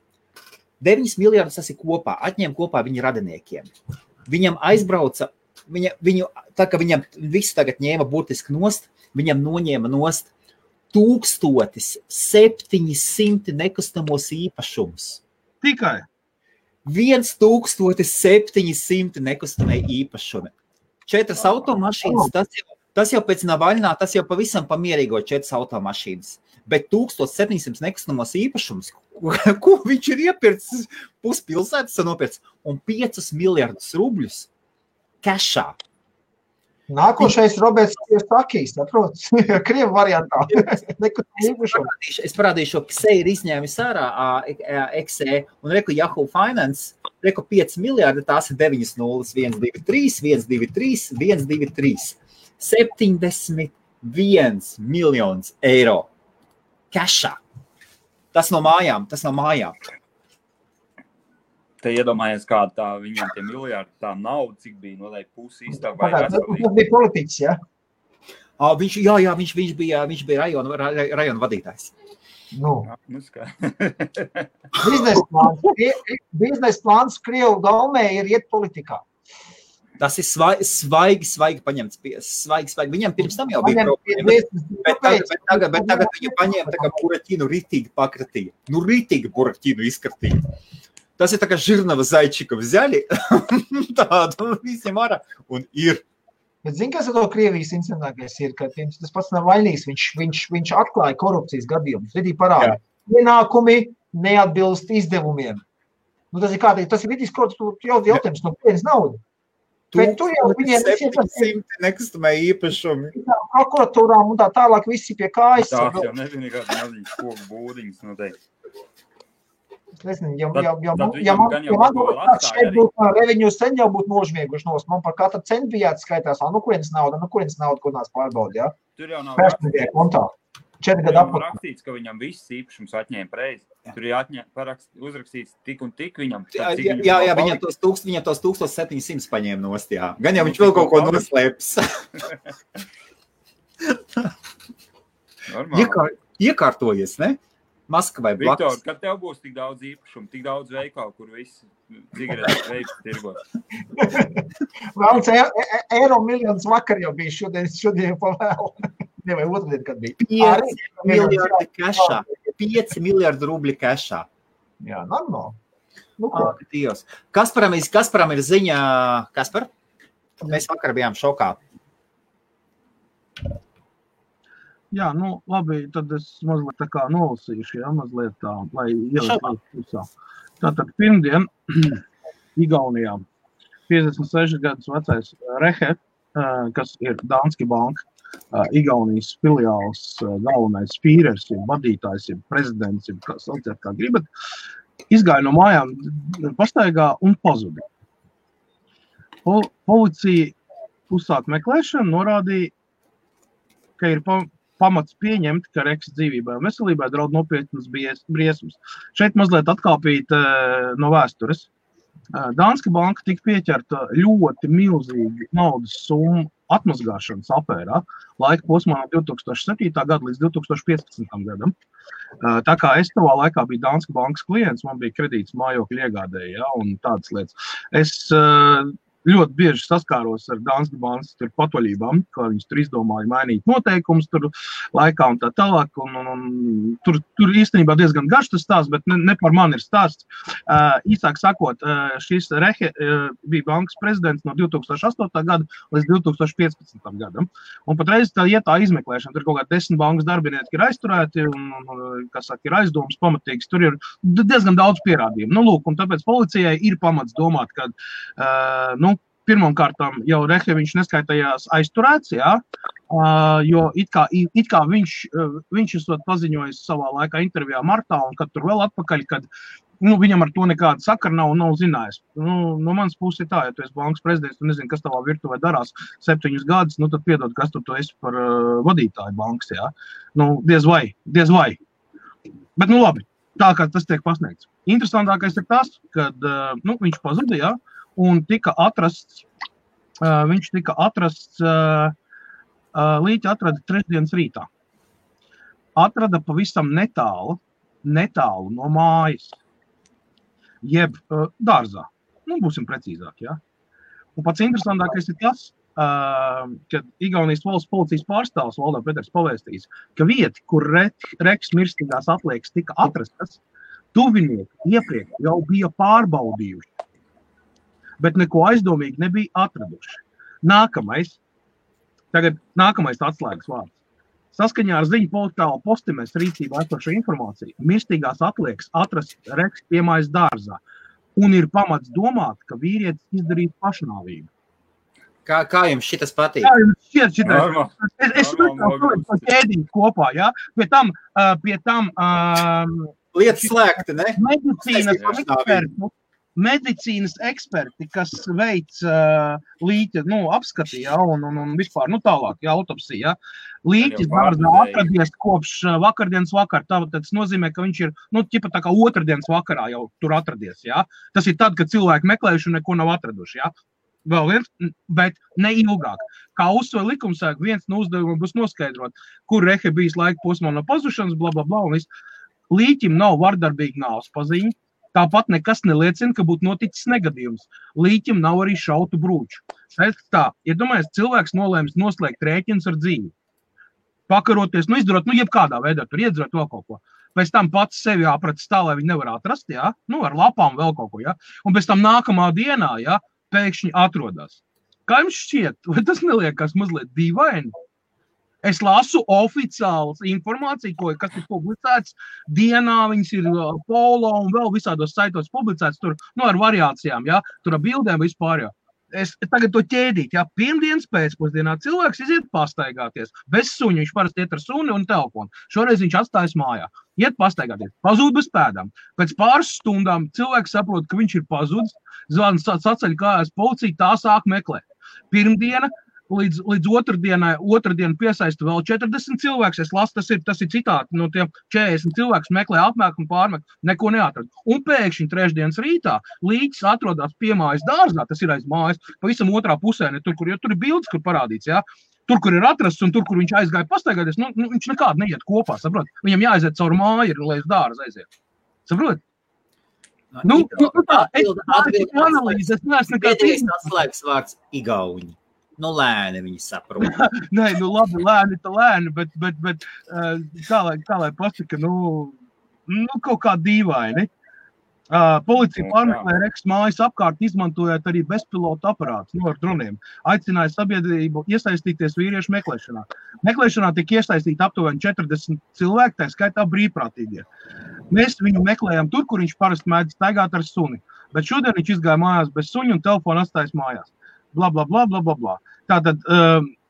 9 miljardus tas ir kopā, atņēma kopā viņa radiniekiem. Viņam aizbrauca, tā kā viņam visu tagad ņēma burtiski nost, viņam noņēma nost 1700 nekustamos īpašumus. Tikai? 1700 nekustamie īpašumi. 4 automašīnas, tas jau pēc Navaļnā, tas jau pavisam pamierīgo 4 automašīnas. Bet 1700 nekustamos īpašumus, ko viņš ir iepircis, puspilsētas nopircis, un 5 miljardus rubļus kešā. Nākošais Roberts Sakīs, saprotas, Krievu variantā. Es parādīšu, ka Ksei ir izņēmis ārā Eksē, un reku Yahoo Finance, reku 5 miljardi, tās ir 9 nulles, 1, 2, 3, 1, 2, 3, 1, 2, 3. 71 miljonus eiro. Cashā. Tas no mājām. Te iedomājies, kāda tā viņam tie miljardi, tā nauda, cik bija noteikti pusi iztāk vai veselīgi. Tas bija politiķis, ja? Viņš bija rajona vadītājs. Biznesa plāns Krievu gaumē ir iet politikā. Tas ir svaigi paņemts. Svaigi. Viņam pirms tam jau bija problēmas. Bet tagad viņu paņēma tā kā buraķinu ritīgi pakratīja. Ritīgi buraķinu izkratīja. Tas ir tā kā Žirnava Zaičika взяли, tādu visiem ārā, un ir. Bet zini, kas ar to Krievijas incidentākais ir, ka tas pats nav vainīgs, viņš atklāja korupcijas gadījumus, vidī parāda. Ienākumi neatbilst izdevumiem. Tas ir kārtīgi, tas ir vidīs korupcijas jautājums, no kurienes nauda. Bet tur jau viņiem 700 nekustamē īpašumi. Prokuratūrām un tā tālāk visi pie kājas. Tās jau nezinu, kāds maziņas koku būdiņas noteikti. Es nezinu, ja man šeit būtu reveņu sen jau būtu nožmieguši nos. Man par katru centu bija jāatskaitās, kurienes nauda, ko nāc pārbaudi, ja? Tur jau nav kontā. 4 gadu apkārt. Rakstīts, ka viņam viss īpašums atņēma preizi. Tur ir uzrakstīts tik un tik viņam. Jā, viņam tos 1700 paņēma nost, jā. Gan jau viņš vēl kaut ko noslēps. Iekārtojies, ne? Maskavai blakus. Viktor, kad tev būs tik daudz īpašumu, tik daudz veikalu, kur visi cigaretes veids tirgot? Vēlams, eiro miljonus vakar jau bija šodien pavēl. Ne, vai otrdien, kad bija. 5 miljardi kešā. 5 miljardi rubļi kešā. Jā, normāli. Dievs. Kasparam ir ziņa. Kaspar? Mēs vakar bijām šokā. Jā, labi, tad es mazliet tā kā nolasīšu, mazliet tā, lai ielikt pusā. Tātad pirmdien Igaunijā 56 gadus vecais Rehe, kas ir Danske Bank, Igaunijas filiāls galvenais fīrers, vadītājs, prezidents, kā sauciet, kā gribat, izgāja no mājām pastaigā un pazuda. Policija uzsāk meklēšanu, norādīja, ka ir pamats pieņemt, ka Reks dzīvībai un veselībai draud nopietnas briesmas. Šeit mazliet atkāpīt no vēstures. Danske Banka tika pieķerta ļoti milzīgi naudas summu atmazgāšanas afērā laika posmā no 2007. Gada līdz 2015. gadam. Tā kā es tavā laikā biju Danske Bankas klients, man bija kredīts mājokļu iegādēji, un tādas lietas. Es ļoti bieži saskāros ar Danske Bankas patvaļībām, kā viņas tur izdomāja mainīt noteikumus tur laikā un tā tālāk. Tur īstenībā diezgan garš tas stāsts, bet ne par mani ir stāsts. Īsāk sakot, šis Rehe bija bankas prezidents no 2008. Gada līdz 2015. gadam. Un patreiz tā iet tā izmeklēšana. Tur kaut kā 10 bankas darbinieki ir aizturēti un kas saka, ir aizdomas pamatīgs. Tur ir diezgan daudz pierādījumu. Lūk, un tāpēc policijai ir pamats domāt, ka pirmkārtām jau Rehe viņš neskaitījās aizturēts, jo it kā viņš esot paziņojis savā laikā intervijā martā, un kad tur vēl atpakaļ, kad viņam ar to nekāda sakara nav zinājis. No manas puses ir tā, ja tu esi bankas prezidents, tu nezini, kas tavā virtuvē darās 7 gadus, tad piedod, kas tu esi par vadītāju bankas, diez vai. Bet labi, tā kā tas tiek pasniegts. Interesantākais ir tas, kad viņš pazuda, un viņš tika atrasts, līķi atrada trešdienas rītā. Atrada pavisam netālu no mājas, jeb dārzā. Būsim precīzāk, Un pats interesantākais ir tas, kad Igaunijas valsts policijas pārstāvs Valdā Peters pavēstījis, ka vieti, kur Reks mirstīgās atliekas tika atrastas, tuvinieki iepriekš jau bija pārbaudījuši, bet neko aizdomīgi nebija atraduši. Nākamais atslēgas vārds. Saskaņā ar ziņu portāla Postimes rīcībā esošo informāciju, mirstīgās atliekas atrast Reks piemājas dārzā, un ir pamats domāt, ka vīrietis izdarīja pašnāvību. Kā jums šitas patīk? Kā jums šķiet šitais? Es to ķēdiņu kopā, Pie tam lietas slēgti, ne? Medicīnas ekspertu medicīnas eksperti, kas veic līķa, apskati, ja, un vispār, tālāk, ja, autopsija, ja. Līķis dārzā atradies kopš vakardienas vakar, tas nozīmē, ka viņš ir, ķipa tā kā otrdienas vakarā jau tur atradies, ja. Tas ir tad, kad cilvēki meklējuši un neko nav atraduši, ja. Vēl viens, bet ne ilgāk. Kā uzsver likumsargi, viens no uzdevumiem būs noskaidrot, kur rehe bijis laika posmā no pazušanas, blablabla, un viss. Līķim nav vardarbīga nāves paziņa, tāpat nekas neliecina, ka būtu noticis negadījums. Līķim nav arī šautu brūču. Tā, iedomājies, cilvēks nolēmis noslēgt rēķinus ar dzīvi. Pakaroties, izdarot, jebkādā veidā, tur iedzerot vēl kaut ko. Pēc tam pats sevi aprats tā, lai viņi nevar atrast, ja? Ar lapām vēl kaut ko, ja? Un pēc tam nākamā dienā, ja? Pēkšņi atrodas. Kā jums šķiet? Vai tas neliekas mazliet dīvaini? Es lasu oficiālas informāciju, kas ir publicēts dienā, viņas ir polo un vēl visādos saitos publicēts tur, ar variācijām, ja? Tur ar bildēm vispār, ja? Es tagad to ķēdīt, ja? Pirmdienas pēcpusdienā cilvēks iziet pastaigāties. Bez suņa, viņš parasti iet ar suni un telefonu. Šoreiz viņš atstājas mājā. Iet pastaigāties. Pazūd bez pēdām. Pēc pāris stundām cilvēks saprot, ka viņš ir pazudis. Zvans saceļ kājās policija, tā sāk meklēt. Pirmdiena līdz otrdienu piesaista vēl 40 cilvēks. Es lasu, tas ir citāti no tiem 40 cilvēks meklē apmēk un pārmek, neko neatrod. Un pēkšņi trešdienas rītā līķis atrodas pie mājas dārzā, tas ir aiz mājas, pavisam otrā pusē, ne tur, kur ir bildes, kur parādīts, ja? Tur, kur ir atrasts un tur, kur viņš aizgāja pastaigāties, viņš nekādi neiet kopā, saprot? Viņam jāaiziet caur māju, lai uz dārzu aiziet. Saprot? Tā, es analīzi, es neesmu nekāds atslēgas vārds igauņi. Lēni viņi saprot. Nē, labi, lēni, bet kā lai pasaka, kaut kā dīvaini. Policija pārmeklē Reks mājas apkārt, izmantojot arī bezpilota aparātus ar droniem. Aicināja sabiedrību iesaistīties vīriešu meklēšanā. Meklēšanā tika iesaistīti aptuveni 40 cilvēki, tā skaitā brīvprātīgie. Mēs viņu meklējam tur, kur viņš parasti mēdz staigāt ar suni. Bet šodien viņš izgāja mājās bez suņa un telefonu atstājas mājās. Blablabla. Tātad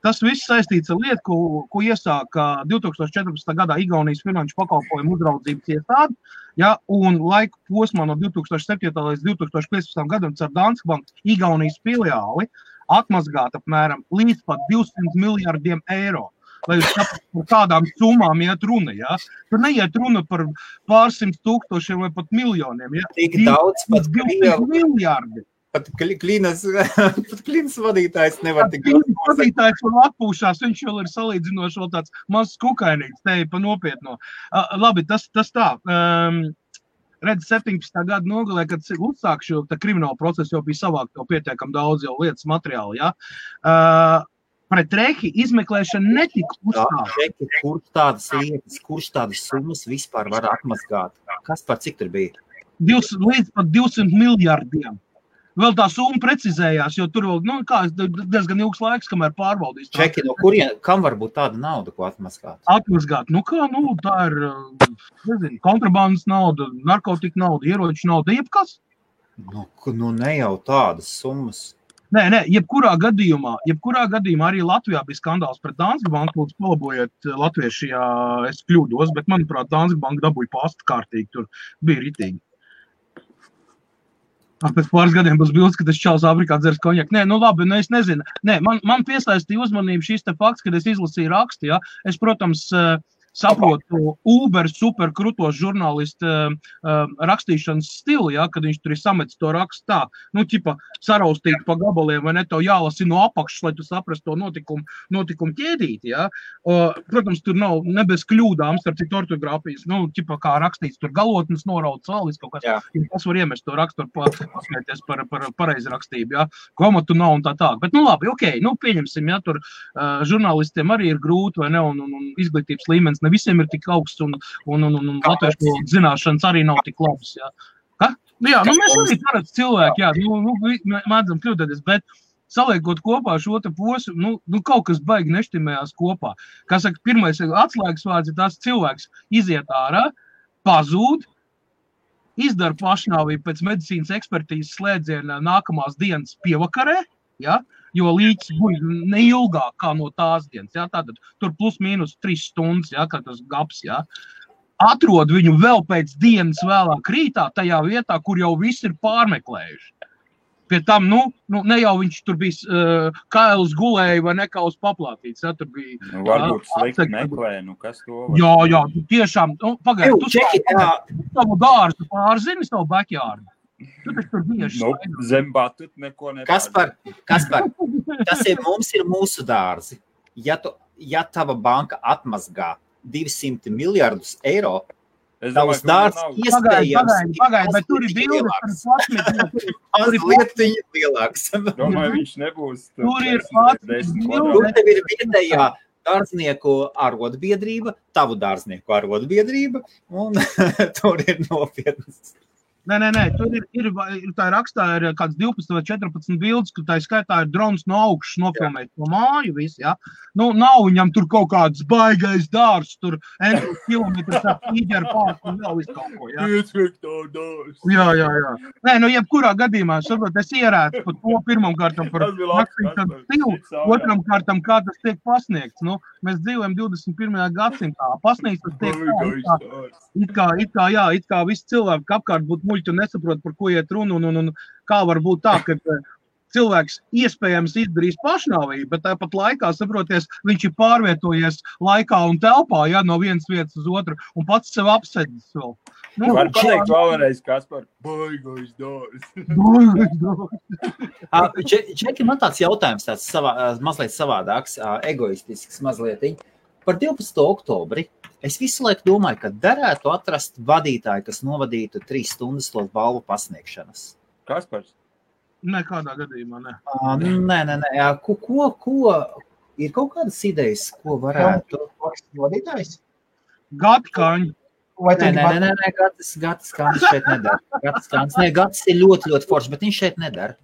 tas viss saistīts ar lietu, ko iesāka 2014. gadā Igaunijas finanšu pakalpojumu uzraudzības iestāde, ja, un laika posmā no 2007. līdz 2015. gadam caur Danske Bank Igaunijas filiāli atmazgāt apmēram līdz pat 200 miljardiem eiro. Lai jūs saprastu, par kādām summām iet runa, ja? Tur neiet runa par pārsimt tūkstošiem vai pat miljoniem, ja? Tik daudz pat 200 miljardi. Pat klīnas vadītājs nevar tik daudz. Klīnas vadītājs vēl atpūšās, viņš vēl ir salīdzinoši vēl tāds mazs kukainīgs, te pa nopietno. Labi, tas tā. Redz, 17. gada nogalē, kad uzsāk šo kriminālu procesu, jau bija savākt jau pietiekam daudz jau lietas materiāli, ja? Pret Rehi izmeklēšana netika uzstāta. Kurš tādas lietas, kurš tādas summas vispār var atmazgāt? Kas par cik tur bija? Līdz pat 200 miljardiem. Vēl tā summa precizējās, jo tur vēl, diezgan ilgs laiks, kamēr pārbaudīs. Čeki, no kurien, kam var būt tāda nauda, ko atmazgāt? Atmazgāt, tā ir, kontrabandas nauda, narkotika nauda, ieroču nauda, jebkas. Ne jau tādas summas. Nē, jebkurā gadījumā arī Latvijā bija skandāls pret Danske Banku, lūdzu palabojiet latvieši, ja es kļūdos, bet manuprāt, Danske Banka dabūja pastu kārtīgi, tur bija ritīgi. Pēc pāris gadiem būs bildes, ka tas čals Afrikā dzers konjaku. Nē, labi, es nezinu. Nē, man piesaistīja uzmanību šis te fakts, kad es izlasīju rakstu, ja. Es, protams, saprotu Uber super krutos žurnālistu rakstīšanas stilu, ja, kad viņš tur ir samets to rakstu tā, ķipa saraustīt pa gabaliem, vai ne, tev jālasi no apakšas, lai tu saprastu to notikumu ķēdīt, ja. Protams, tur nav ne bez kļūdām, starp citu ortogrāfijas, ķipa kā rakstīts, tur galotnes norauts salis kaut kas, ja kas var iemest to rakstu, pasmieties par pareizrakstību, ja, komatu nav un tā. Bet, labi, ok, pieņemsim, ja, tur žurnālistiem arī ir grūti, vai ne, un izglītības līmenis ne visiem ir tik augsts, un latviešu zināšanas arī nav tik labas, jā. Ka? Jā, mēs arī parasti cilvēki, jā, mēdzam kļūdēties, bet saliekot kopā šo te posmu, kaut kas baigi neštimējās kopā. Kā saka, pirmais atslēgas vārds ir tās cilvēks iziet ārā, pazūd, izdara pašnāvību pēc medicīnas ekspertīzes slēdziena nākamās dienas pievakarē, ja? Jo līķis būja neilgāk kā no tās dienas, ja? Tātad tur plus mīnus 3 stundas, ja? Kā tas gaps, ja? atrod viņu vēl pēc dienas vēlāk rītā tajā vietā, kur jau viss ir pārmeklējuši. Pie tam, ne jau viņš tur bija kails gulēja vai nekā uz paplātīts, ja, tur bija... Varbūt slikti meklē, kas to var... Jā, tiešām, pagaid, tu savu dārzu pārzini, savu backyard. Tu taču tur bieži zem batut neko nepārdzi. Kaspar, mums ir mūsu dārzi. Ja tava banka atmazgā 200 miljardus eiro, tavs dārsts iespējams... Pagaid, bet tur ir bildes par plasmiku. Mazlietiņi lielāks. Domāju, viņš nebūs tur ir plasmiku. Tur tev ir vietējā dārznieku arotbiedrība, tavu dārznieku arotbiedrība, un tur ir nopietnas. Nē, tur ir tā rakstā ir kāds 12 vai 14 bildes, ka tā skaitā ir drons no augšas nofilmēt no māju visi, ja. Nav viņam tur kaut kāds baigais dārs, tur kilometrs ar tīģeru pārku un vēl visu kaut ko, ja. Iesvektā dārs. Jā. Nē, jebkurā gadījumā, saprot, es ierētu par to pirmam kārtam par naktīm stilu, otram kārtam, kā tas tiek pasniegts. Mēs dzīvojam 21. gadsimtā. Pasniegts tas tiek it kā visi cilvēki apkārt būtu muļķi un nesaprot, par ko iet runu, un kā var būt tā, ka cilvēks iespējams izdarīs pašnāvību, bet tāpat laikā, saproties, viņš ir pārvietojies laikā un telpā, ja, no vienas vietas uz otru, un pats sev apsēdis vēl. Var pateikt vēlreiz, Kaspar, baigais dārs. Čeki, man tāds jautājums, mazliet savādāks, egoistisks mazlietiņ. Par 12. oktobri es visu laiku domāju, ka derētu atrast vadītāju, kas novadītu 3 stundas to balvu pasniegšanas. Kaspars? Nekādā gadījumā, ne. Nē. Ko ir kaut kādas idejas, ko varētu? Vadītājs? Gatkaņi. Nē, Gatis Kāns šeit nedara. Gatis ir ļoti, ļoti foršs, bet viņš šeit nedara.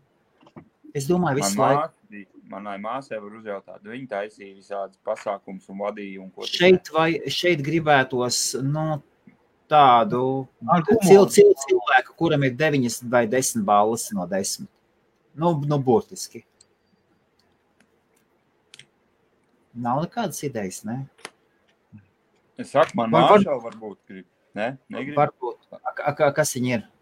Es domāju, visu laiku. Manai māsai var uzjautāt, viņa taisīja visādas pasākums un vadīja un ko. Šeit gribētos, tādu cilvēku, kuram ir 9 vai 10 balvas no 10. Burtiski. Nav nekādas idejas, ne? Es saku, man māšā varbūt grib. Ne? Negrib? Varbūt. Kas viņa ir?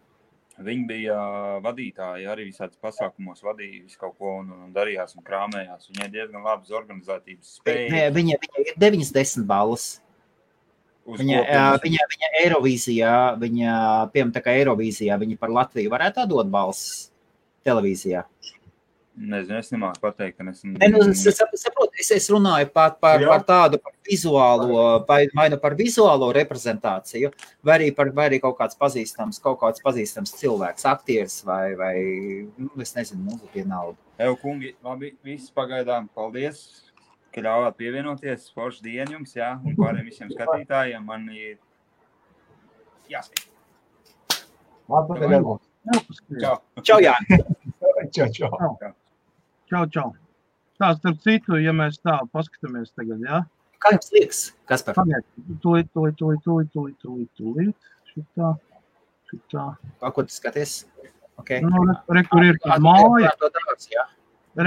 Viņi bija vadītāji, arī visādas pasākumos vadīja visu kaut ko un darījās un krāmējās. Viņai diezgan labas organizētības spēja. Viņa ir 9-10 balvas. Viņa Eirovīzijā, piemēram, tā kā Eirovīzijā, viņa par Latviju varētu atdot balsis televīzijā. Nezinu, es nemāku pateikt, ka es runāju par tādu vizuālo, vai par vizuālo reprezentāciju, vai arī kaut kāds pazīstams cilvēks, aktieris vai es nezinu, vienalga. Kungi, labi, viss pagaidām, paldies, ka ļāvāt pievienoties, forši dienu jums, jā, un pārējiem visiem skatītājiem, man ir jāskat. Čau, Jāni. Čau. Tā, starp citu, ja mēs tā paskatāmies tagad, jā? Kā jums liekas, Kaspar? Tūlīt. Šitā. Ko tu skaties? Okay. Rekur ir tā māja.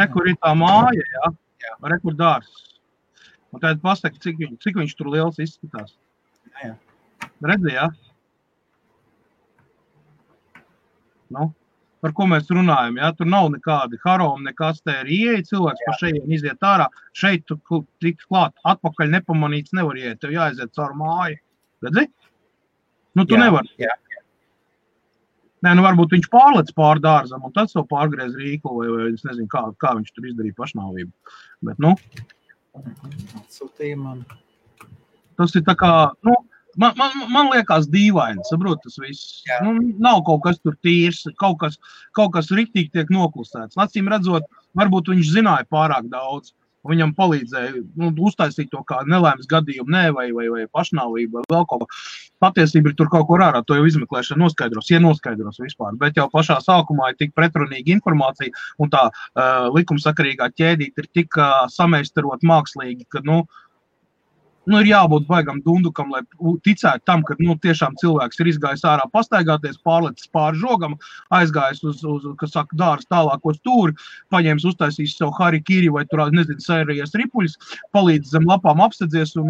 Rekur ir tā māja, jā? Rekur dārs. Un tad pasaka, cik viņš tur liels izskatās. Jā. Redzi, jā? Par ko mēs runājam, ja? Tur nav nekādi haromi, nekas te ir ieeja, cilvēks pa šeit iziet ārā, šeit tu tik klāt, atpakaļ nepamanīts nevar ieiet, tev jāaiziet caur māju. Redzi? Tu nevari. Jā. Nē, varbūt viņš pārlec pār dārzam un tad savu pārgriez rīklu, vai es nezinu, kā viņš tur izdarīja pašnāvību. Bet, Sūtīja man. Tas ir tā kā, Man liekas dīvaini, saprot tas viss. Nav kaut kas tur tīrs, kaut kas riktīgi tiek noklusēts. Acīm redzot, varbūt viņš zināja pārāk daudz, un viņam palīdzēja uztaisīt to kā nelaimes gadījumu, vai pašnāvību, vai vēl kaut ko. Patiesība ir tur kaut ko ārā, to jau izmeklēšana noskaidros vispār, bet jau pašā sākumā ir tik pretrunīga informācija, un tā likumsakarīgā ķēdīte ir tik sameistarot mākslīgi, ka, ir jābūt baigam dundukam, lai ticētu tam, ka tiešām cilvēks ir izgājis ārā pastaigāties, pārlecis pāri žogam, aizgājis uz kas saka, dāras tālāko stūri, paņēmis, uztaisīs savu harikiri vai tur, nezinu, sērijas ripuļus, palīdz zem lapām apstedzies un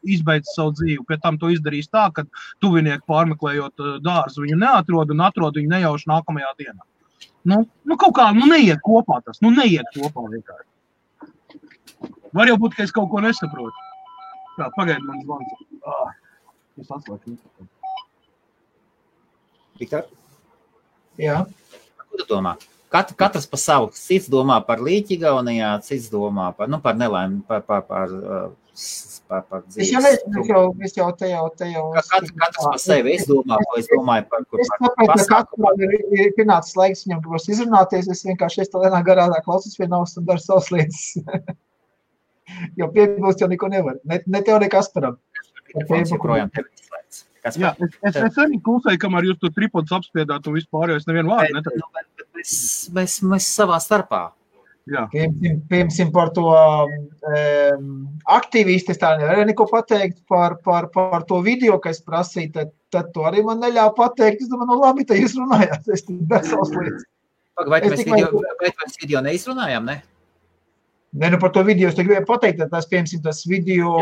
izbeidz savu dzīvi. Pie tam to izdarīs tā, ka tuvinieki pārmeklējot dārzu viņu neatrod un atrod viņu nejauši nākamajā dienā. Kaut kā, neiet kopā tas, neiet kopā vienkārši. Var jau būt, ka es kaut ko nesaprotu. Tā, pagaidi man zvans. Es atslēgu. Viktor? Jā. Ko tu domā? Katrs pa savu. Cits domā par līķi Igaunijā, cits domā par nelaimi, par dzīves. Es jau te jau. Katrs pa sevi. Es domāju par kur. Es tāpēc, ka katram ir pienācis laiks viņam gribas izrunāties, es vienkārši vienā garā klausos vienaus un daru savas lietas. Jo piebilst jau neko nevar. Ne tev, ne Kasparam. Jā, es arī klusēju, kamēr jūs to tripodus apspiedāt un vispār, jo es nevienu vārdu neteicu. Mēs savā starpā. Jā. Piemēram, par to aktīvisti, es tā nevaru neko pateikt par to video, ka es prasīju, tad to arī man neļāva pateikt. Es domāju, labi, tad jūs runājāt, es daru savas lietas. Vai mēs video neizrunājām, ne? Ne, par to video es te gribēju pateikt, ka tas video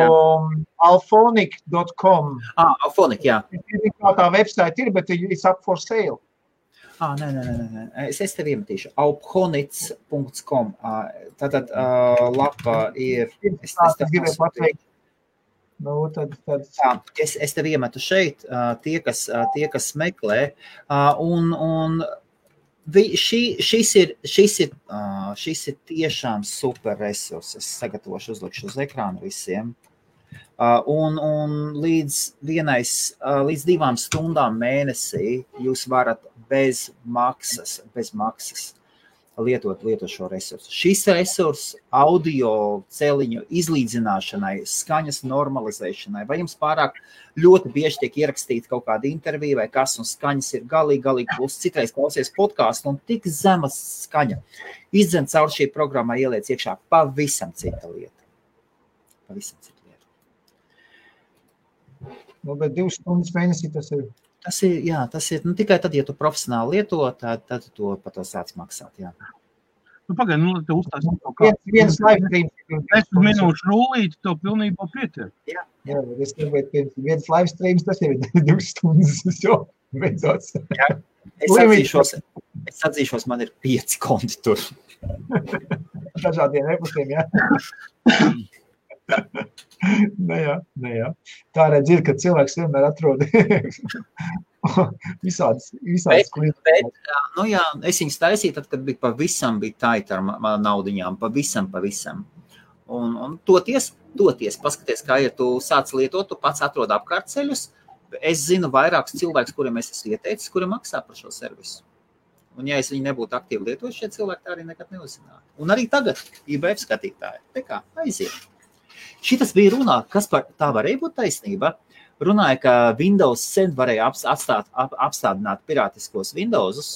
alphonic.com. Alphonic, jā. Kā tā website ir, bet it's up for sale. Nē. Es tev iemetīšu. alphonic.com. Tātad lapa ir... Es gribēju pateikt. Es tev iemetu šeit, tie, kas meklē, un šis ir tiešām super resurss. Es sagatavošu, uzlikšu uz ekrānu visiem. Un līdz 2 stundām mēnesī jūs varat bez maksas lietot šo resursu. Šis resurs audio celiņu izlīdzināšanai, skaņas normalizēšanai, vai jums pārāk ļoti bieži tiek ierakstīta kaut kāda intervija vai kas, un skaņas ir galīgi plus. Citreiz klausies podcastu un tik zema skaņa. Izdzen caur šī programmā ieliec iekšā pavisam cita lieta. Bet 2 stundas mēnesī tas ir. Tas ir tikai tad, ja tu profesionāli lieto, tad tu par to sāc maksāt, jā. Pagaidi, lai te uztaisīt kaut kā. Viens live streams. 10 minūšu rulīti, to pilnībā pietiek. Jā, es gribētu, viens live streams, tas ir 2 stundas, jo beidzot. Jā, es atzīšos, man ir 5 konti tur. Dažādiem epustiem, jā. Jā. Tā redz ir, ka cilvēks vienmēr atrod visādas bet, es viņus taisīju, tad, kad pavisam bija taita ar naudiņām, pavisam. Un toties, paskaties, kā ir, tu sāc lietot, tu pats atrod apkārtceļus. Es zinu vairākus cilvēkus, kuriem es esmu ieteicis, kuri maksā par šo servisu. Un ja es viņu nebūtu aktīvi lietot, šie cilvēki tā arī nekad neuzzinātu. Un arī tagad IBF skatītāji, te kā, aiziet. Šitas bija runā, kas par tā varēja būt taisnība. Runāja, ka Windows sen varēja apstādināt pirātiskos Windowsus,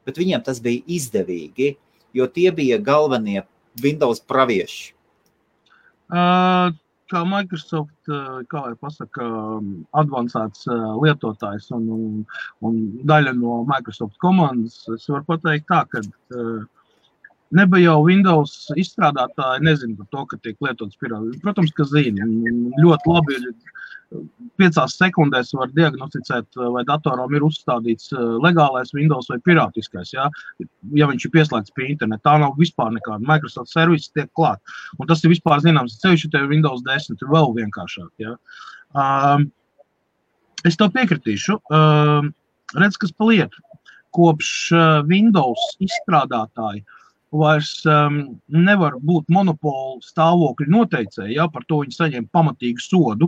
bet viņiem tas bija izdevīgi, jo tie bija galvenie Windows pravieši. Kā Microsoft, kā jau pasaka, advancēts lietotājs un daļa no Microsoft komandas, es varu pateikt tā, ka nebija jau Windows izstrādātāji, nezinu par to, ka tiek lietots pirātiski. Protams, ka zina. Ļoti labi ir 5 sekundēs var diagnosticēt, vai datoram ir uzstādīts legālais Windows vai pirātiskais, ja viņš ir pieslēgts pie interneta. Tā nav vispār nekāda. Microsoft servisi tiek klāt. Un tas ir vispār zināms. Ceļš ir Windows 10, ir vēl vienkāršāk. Ja. Es tev piekritīšu. Redz, kas pa lietu. Kopš Windows izstrādātāji vairs nevar būt monopolu stāvokļu noteicēji, ja, par to viņi saņem pamatīgu sodu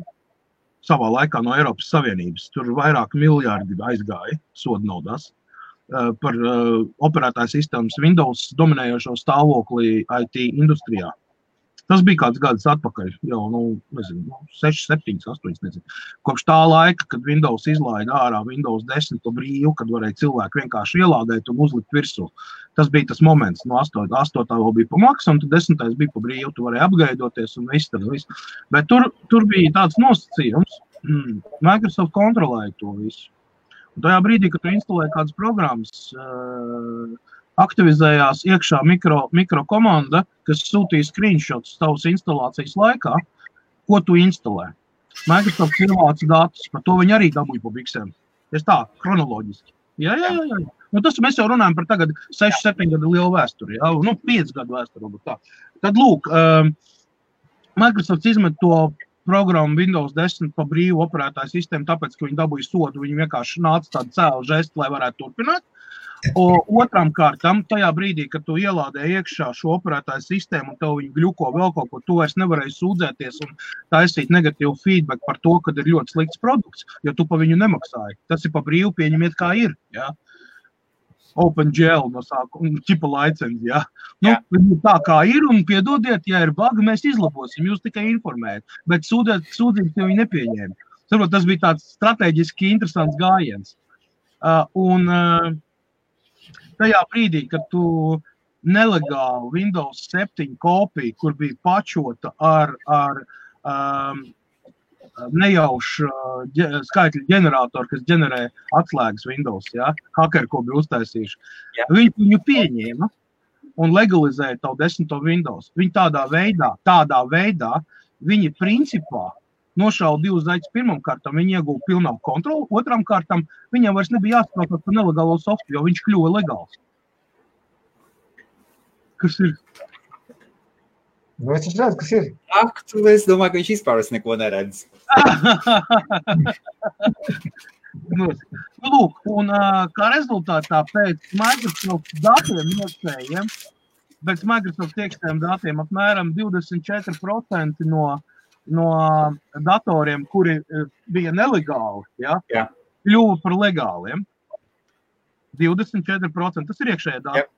savā laikā no Eiropas Savienības. Tur vairāk miljardi aizgāja sodu naudās par operētāju sistēmas Windows dominējošo stāvokli IT industrijā. Tas bija kāds gads atpakaļ, jau, 6, 7, 8, nezinu. Kopš tā laika, kad Windows izlaida ārā Windows 10 brīvu, kad varēja cilvēki vienkārši ielādēt un uzlikt virsū. Tas bija tas moments, no 8. vēl bija pa maksu, un tad 10. bija pa brīvu, tu varēji apgaidoties un viss. Bet tur bija tāds nosacījums, Microsoft kontrolēja to visu. Un tajā brīdī, kad tu instalēji kādas programmas, aktivizējās iekšā mikro komanda, kas sūtīja screenshots tavas instalācijas laikā, ko tu instalē. Microsoft ievāca datus, par to viņi arī dabūja pa biksēm. Es tā, kronoloģiski. Jā. Nu, tas mēs jau runājam par tagad 6-7 gadu lielu vēsturi, jā, 5 gadu vēsturi. Tā. Tad, lūk, Microsoft izmet to programmu Windows 10 pa brīvu operētāju sistēmu, tāpēc, ka viņi dabūja sodu, viņi vienkārši nāca tādu cēlu žestu, lai varētu turpināt. Otram kārtam, tajā brīdī, kad tu ielādēji iekšā šo operētāju sistēmu un tev viņi gļuko vēl kaut ko, tu vairs nevarēji sūdzēties un taisīt negatīvu feedback par to, kad ir ļoti slikts produkts, jo tu pa viņu nemaksāji. Tas ir pa brīvu pieņemiet kā ir, jā. OpenGL no sākuma, ķipa licenci, jā. Nu, tā kā ir un piedodiet, ja ir bagi, mēs izlabosim, jūs tikai informējat, bet sūdzības jau viņi nepieņēma. Saprot, tas bija tāds strateģiski interesants gājiens. Tajā brīdī, kad tu nelegāli Windows 7 kopiju, kur bija pačota ar nejaušu skaitļu ģeneratoru, kas ģenerē atslēgas Windows, ja? Hakeri, ko bija uztaisījuši. Viņi viņu pieņēma un legalizēja tavu 10. Windows. Viņi tādā veidā, viņi principā nošauja 2 zaļus pirmam kārtam, viņi ieguva pilnāku kontroli, otram kārtam viņam vairs nebija jāspēlēt par nelegālo softu, jo viņš kļuva legāls. Kas ir? Nu, es redzu, kas ir. Ak, es domāju, ka viņš vispār neko neredz. Lūk, un kā rezultātā pēc Microsoft datiem iekšējiem, pēc Microsoft iekšējiem datiem apmēram 24% no datoriem, kuri bija nelegāli, kļuva par legāliem. 24%, tas ir iekšējā dati.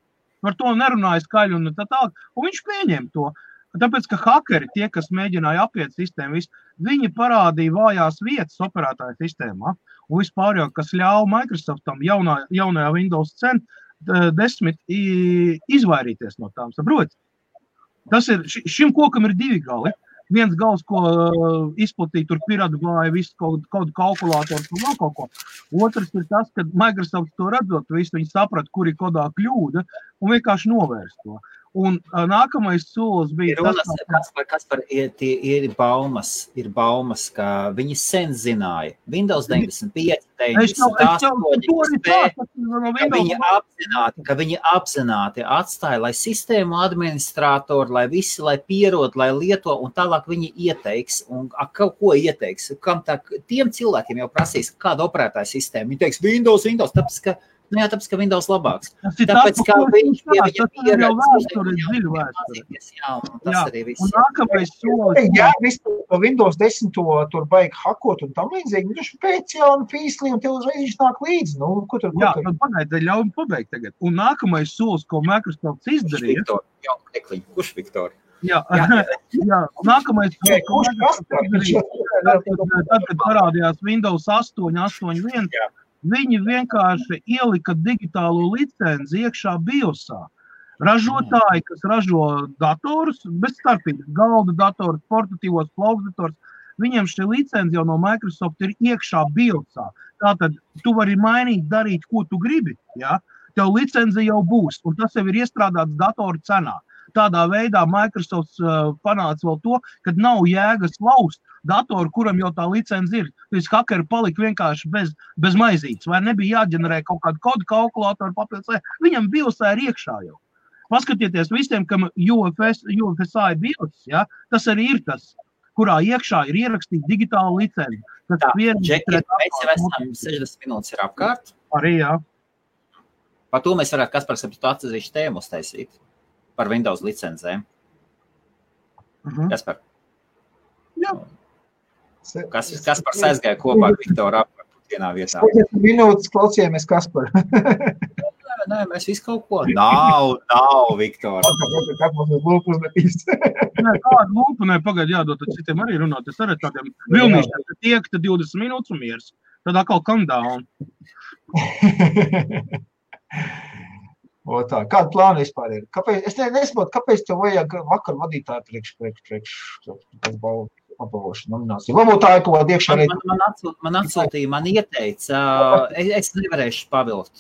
Par to nerunāja skaļi un tā tālāk, un viņš pieņēma to. Tāpēc, ka hakeri, tie, kas mēģināja apiet sistēmu, viņi parādīja vājās vietas operētāju sistēmā, un vispār jau, kas ļauj Microsoftam jaunajā Windows 10 izvairīties no tām, saprot? Tas ir, šim kokam ir 2 gali. Viens gals, ko izplatīja tur piratgāja visu kaut kalkulātoru un vēl kaut ko. Otrs ir tas, ka Microsoft to redzot, visu viņi saprata, kur ir kodā kļūda un vienkārši novērst to. Un nākamais solis bija Kaspar, ir baumas, ka viņi sen zināja. Windows 95, 98, ka viņi apzināti atstāja, lai sistēmu administratori, lai visi, lai pierod, lai lieto, un tālāk viņi ieteiks, un kaut ko ieteiks. Kam tiem cilvēkiem jau prasīs, kāda operētāja sistēma. Viņi teiks, Windows, tāpēc, ka tāpēc, ka Windows labāks. Tāpēc, ka viņš pie viņa pieredz. Tas arī viss. Un nākamais solis. Jā, vispār Windows 10 tur baigi hakot un tam līdzīgi. Viņš pēc jauna fīslī un tev uzreiz viņš nāk līdzi. Nu, ko tur? Jā, tad pagaidi, ļauj pabeigt tagad. Un nākamais solis, ko Microsoft izdarīja. Kurš Viktor? Jā, nākamais solis, ko Microsoft izdarīja. Tad, kad parādījās Windows 8.1, viņi vienkārši ielika digitālo licenci iekšā BIOSā. Ražotāji, kas ražo datorus, bez starpības, galda datorus, portatīvos plaukdators, viņiem šī licenci jau no Microsoft ir iekšā BIOSā. Tātad tu vari mainīt, darīt, ko tu gribi, ja? Tev licenci jau būs, un tas jau ir iestrādāts datoru cenā. Tādā veidā Microsoft panāca vēl to, kad nav jēgas laust datoru, kuram jau tā licenci ir. Tāpēc hakeri palika vienkārši bez maizītes, vai nebija jāģenerē kaut kādu kodu kalkulātoru papildus. Viņam BIOSā ir iekšā jau. Paskatieties visiem, kam UFSA ir BIOS, ja? Tas arī ir tas, kurā iekšā ir ierakstīta digitāla licenci. Džeki, mēs jau esam 60 minūtes ir apkārt. Arī, jā. Par to mēs varētu Kaspars atsevišķu tēmu uztaisīt. Par Windows licencēm. Kaspar. Jā. Kaspars aizgāja kopā ar Viktoru apkārt vienā vietā. 40 minūtes klausījāmies Kasparu. Nē, mēs visu kaut ko. Nav, Viktor. Kā mums ir lūpu uzmetīs? Nē, kāda lūpa, pagaid jādod, tad citiem arī runāt. Es arī tādiem vilnīšiem, ka tiek, tad 20 minūtes un miers. Tad atkal calm down. O tā, kāda plāna vispār ir? Kāpēc, es nesaprotu, kāpēc tev vajag vakar vadītāju priekš apbalvošanu nomināciju? Varbūt tā ir kaut kāda iekšā reiķa. Man atsūtīja, man ieteica, es nevarēšu pavilkt.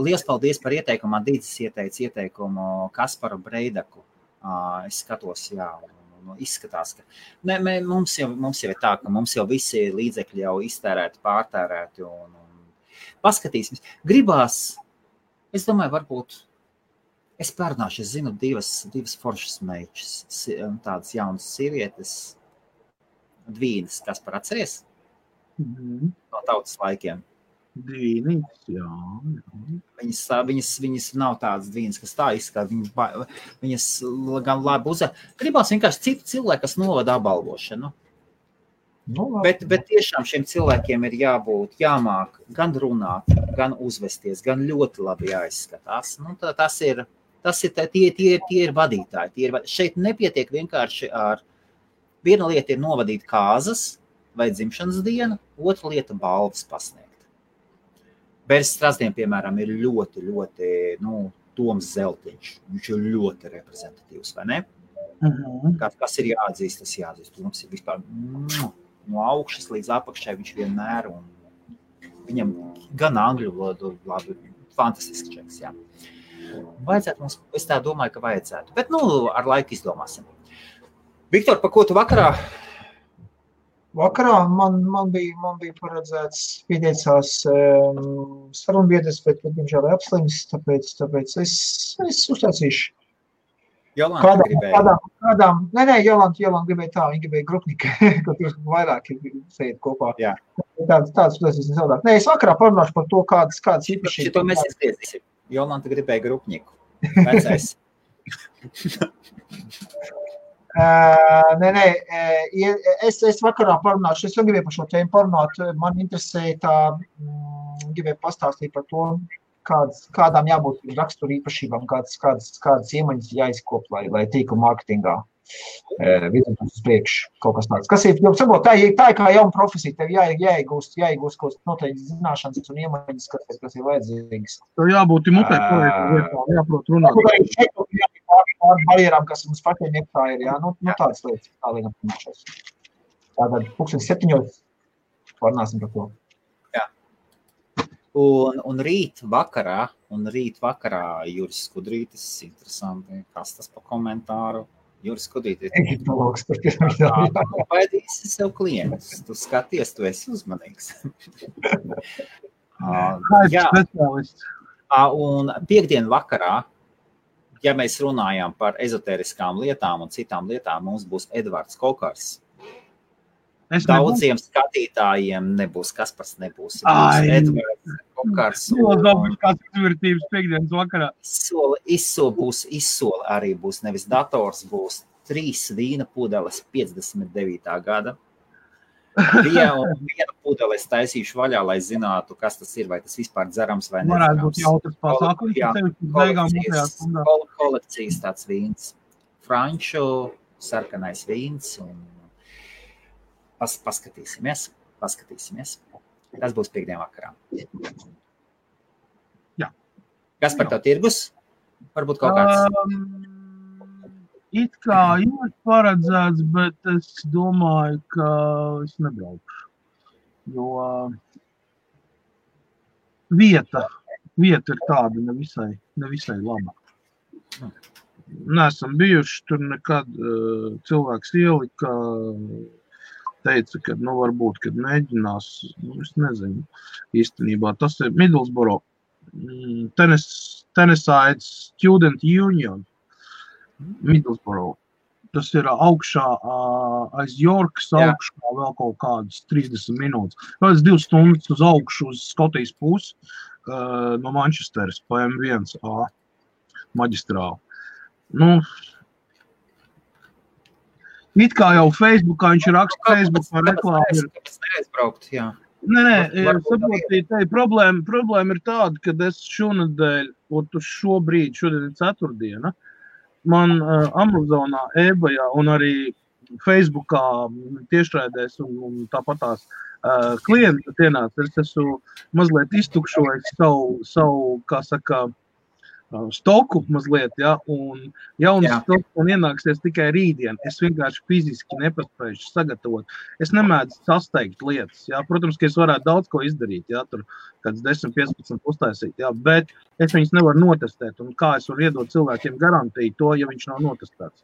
Liels paldies par ieteikumu. Man Dīdzis ieteica ieteikumu Kasparu Breidaku. Es skatos, jā, izskatās, ka mums jau ir tā, ka mums jau visi līdzekļi jau iztērēti, pārtērēti un paskatīsimies. Gribās, es domāju, varbūt es pārnāšu, es zinu divas foršas meičas, tādas jaunas sievietes, Dvīnas, kas par atceries? No tautas laikiem. Dvīnītes, jā. Viņas nav tādas Dvīnas, kas tā izskatās, viņas gan labi uzvar. Gribās vienkārši citu cilvēku, kas novada apbalvošanu. Bet tiešām šiem cilvēkiem ir jāmāk gan runāt, gan uzvesties, gan ļoti labi jāizskatās. Tie ir vadītāji. Šeit nepietiek vienkārši ar viena lieta ir novadīt kāzas vai dzimšanas dienu, otra lieta balvas pasniegt. Bērs Strazdien, piemēram, ir ļoti, Toms Zeltiņš. Viņš ir ļoti reprezentatīvs, vai ne? Kas ir jāatzīst, tas jāatzīst. Toms ir vispār no augšas līdz apakšai viņš vienmēr, un viņam gan angļu valodu labi, fantastisks čeks, jā. Vajadzētu mums, es tā domāju, ka vajadzētu, bet, ar laiku izdomāsim. Viktor, pa ko tu vakarā? Vakarā man bija paredzēts pieteicās sarunbiedres, bet diemžēl apslims, tāpēc es uztaicīšu. Jolanta gribēja. Jolanta gribēja tā, viņa gribēja grupnika, ka tur vairāk sēd kopā. Jā. Tāds uztaicīs nesavādāk. Nē, es vakarā parunāšu par to, kādas īpašības. Šito mēs izgriezīsim. Jolanta gribēja grupniku. Vecais. Es vakarā parunāšu, es gribēju par šo tēmu parunāt, man interesēja tā, gribēju pastāstīt par to, kādām jābūt rakstura īpašībām, kādas iemaņas jāizkop, lai tīklu mārketingā virzītos uz priekšu kaut kas tāds. Kas ir, tā ir kā jauna profesija, tev jāiegūst kaut noteikti zināšanas un iemaņas, kas ir vajadzīgas. Tev jābūt mutē, jāprot runāt. Pār barjerām, kas mums pašiem iekšā ir, jā, tādas lietas, tā liekam pirmāšās. Tātad 7:00 parunāsim par to. Jā. Un rīt vakarā Juris Skudrītis, interesanti, kas tas pa komentāru. Juris Skudrītis. Egiptologs, par tu baidīsi sev klientus, tu skaties, tu esi uzmanīgs. Jā. Un piekdien vakarā, ja mēs runājām par ezoteriskām lietām un citām lietām, mums būs Edvards Kokars. Daudziem skatītājiem nebūs, Kaspars nebūs. Edvards Kokars. Kāds izvērtības piekdienas vakarā. Izsoli arī būs, nevis dators, būs 3 vīna pudeles 59. gada. Vienu pudeli es taisīšu vaļā, lai zinātu, kas tas ir, vai tas vispār dzerams vai nezināms. Varētu būt jautras pasākums. Kolekcijas tāds vīns. Franču, sarkanais vīns. Un paskatīsimies. Tas būs piekdien vakarā. Jā. Kas par tev tirgus? Varbūt kaut kāds? It kā ir paredzēts, bet es domāju, ka es nebraukšu. Jo vieta ir tāda nevisai laba. Neesam bijuši tur nekad, cilvēks ielika, teica, ka varbūt, kad mēģinās, es nezinu, īstenībā tas ir Middlesbrough, Tennessee Student Union, Middlesbrough. Tas ir augšā aiz Yorkas, augšā vēl kaut kādas 30 minūtes. Kādas 2 stundas uz augšu uz Skotijas pusi no Manchesteras pa M1A maģistrāli. It kā jau Facebookā viņš raksta Facebookā reklāmu ir. Neaizbraukt, jā. Saprotīja, problēma ir tāda, ka es šonadēļ, šodien ir ceturtdiena, man Amazonā, eBayā un arī Facebookā tiešraidēs un tāpatās klienti ienāca. Es esmu mazliet iztukšojis savu, kā saka, stoku mazliet, ja, un jauns stoks man ienāksies tikai rītdien. Es vienkārši fiziski nepaspējuši sagatavot. Es nemēdzu sasteigt lietas, ja. Protams, ka es varētu daudz ko izdarīt, ja, tur kāds 10-15 uztaisīt, ja, bet es viņus nevaru notestēt, un kā es varu iedot cilvēkiem garantiju to, ja viņš nav notestēts.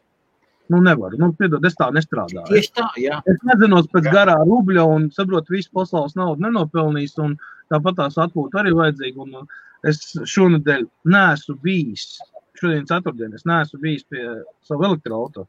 Nu, nevaru. Nu, piedod, es tā nestrādāju. Tieši tā, jā. Es nezinos pēc garā rubļa un saprotu, visu pasaules naudu nenopelnīs, un tāpat tās atpūta arī vajadzīga, un es šonadēļ neesmu bijis, šodien ceturtdien, es neesmu bijis pie savu elektroauto.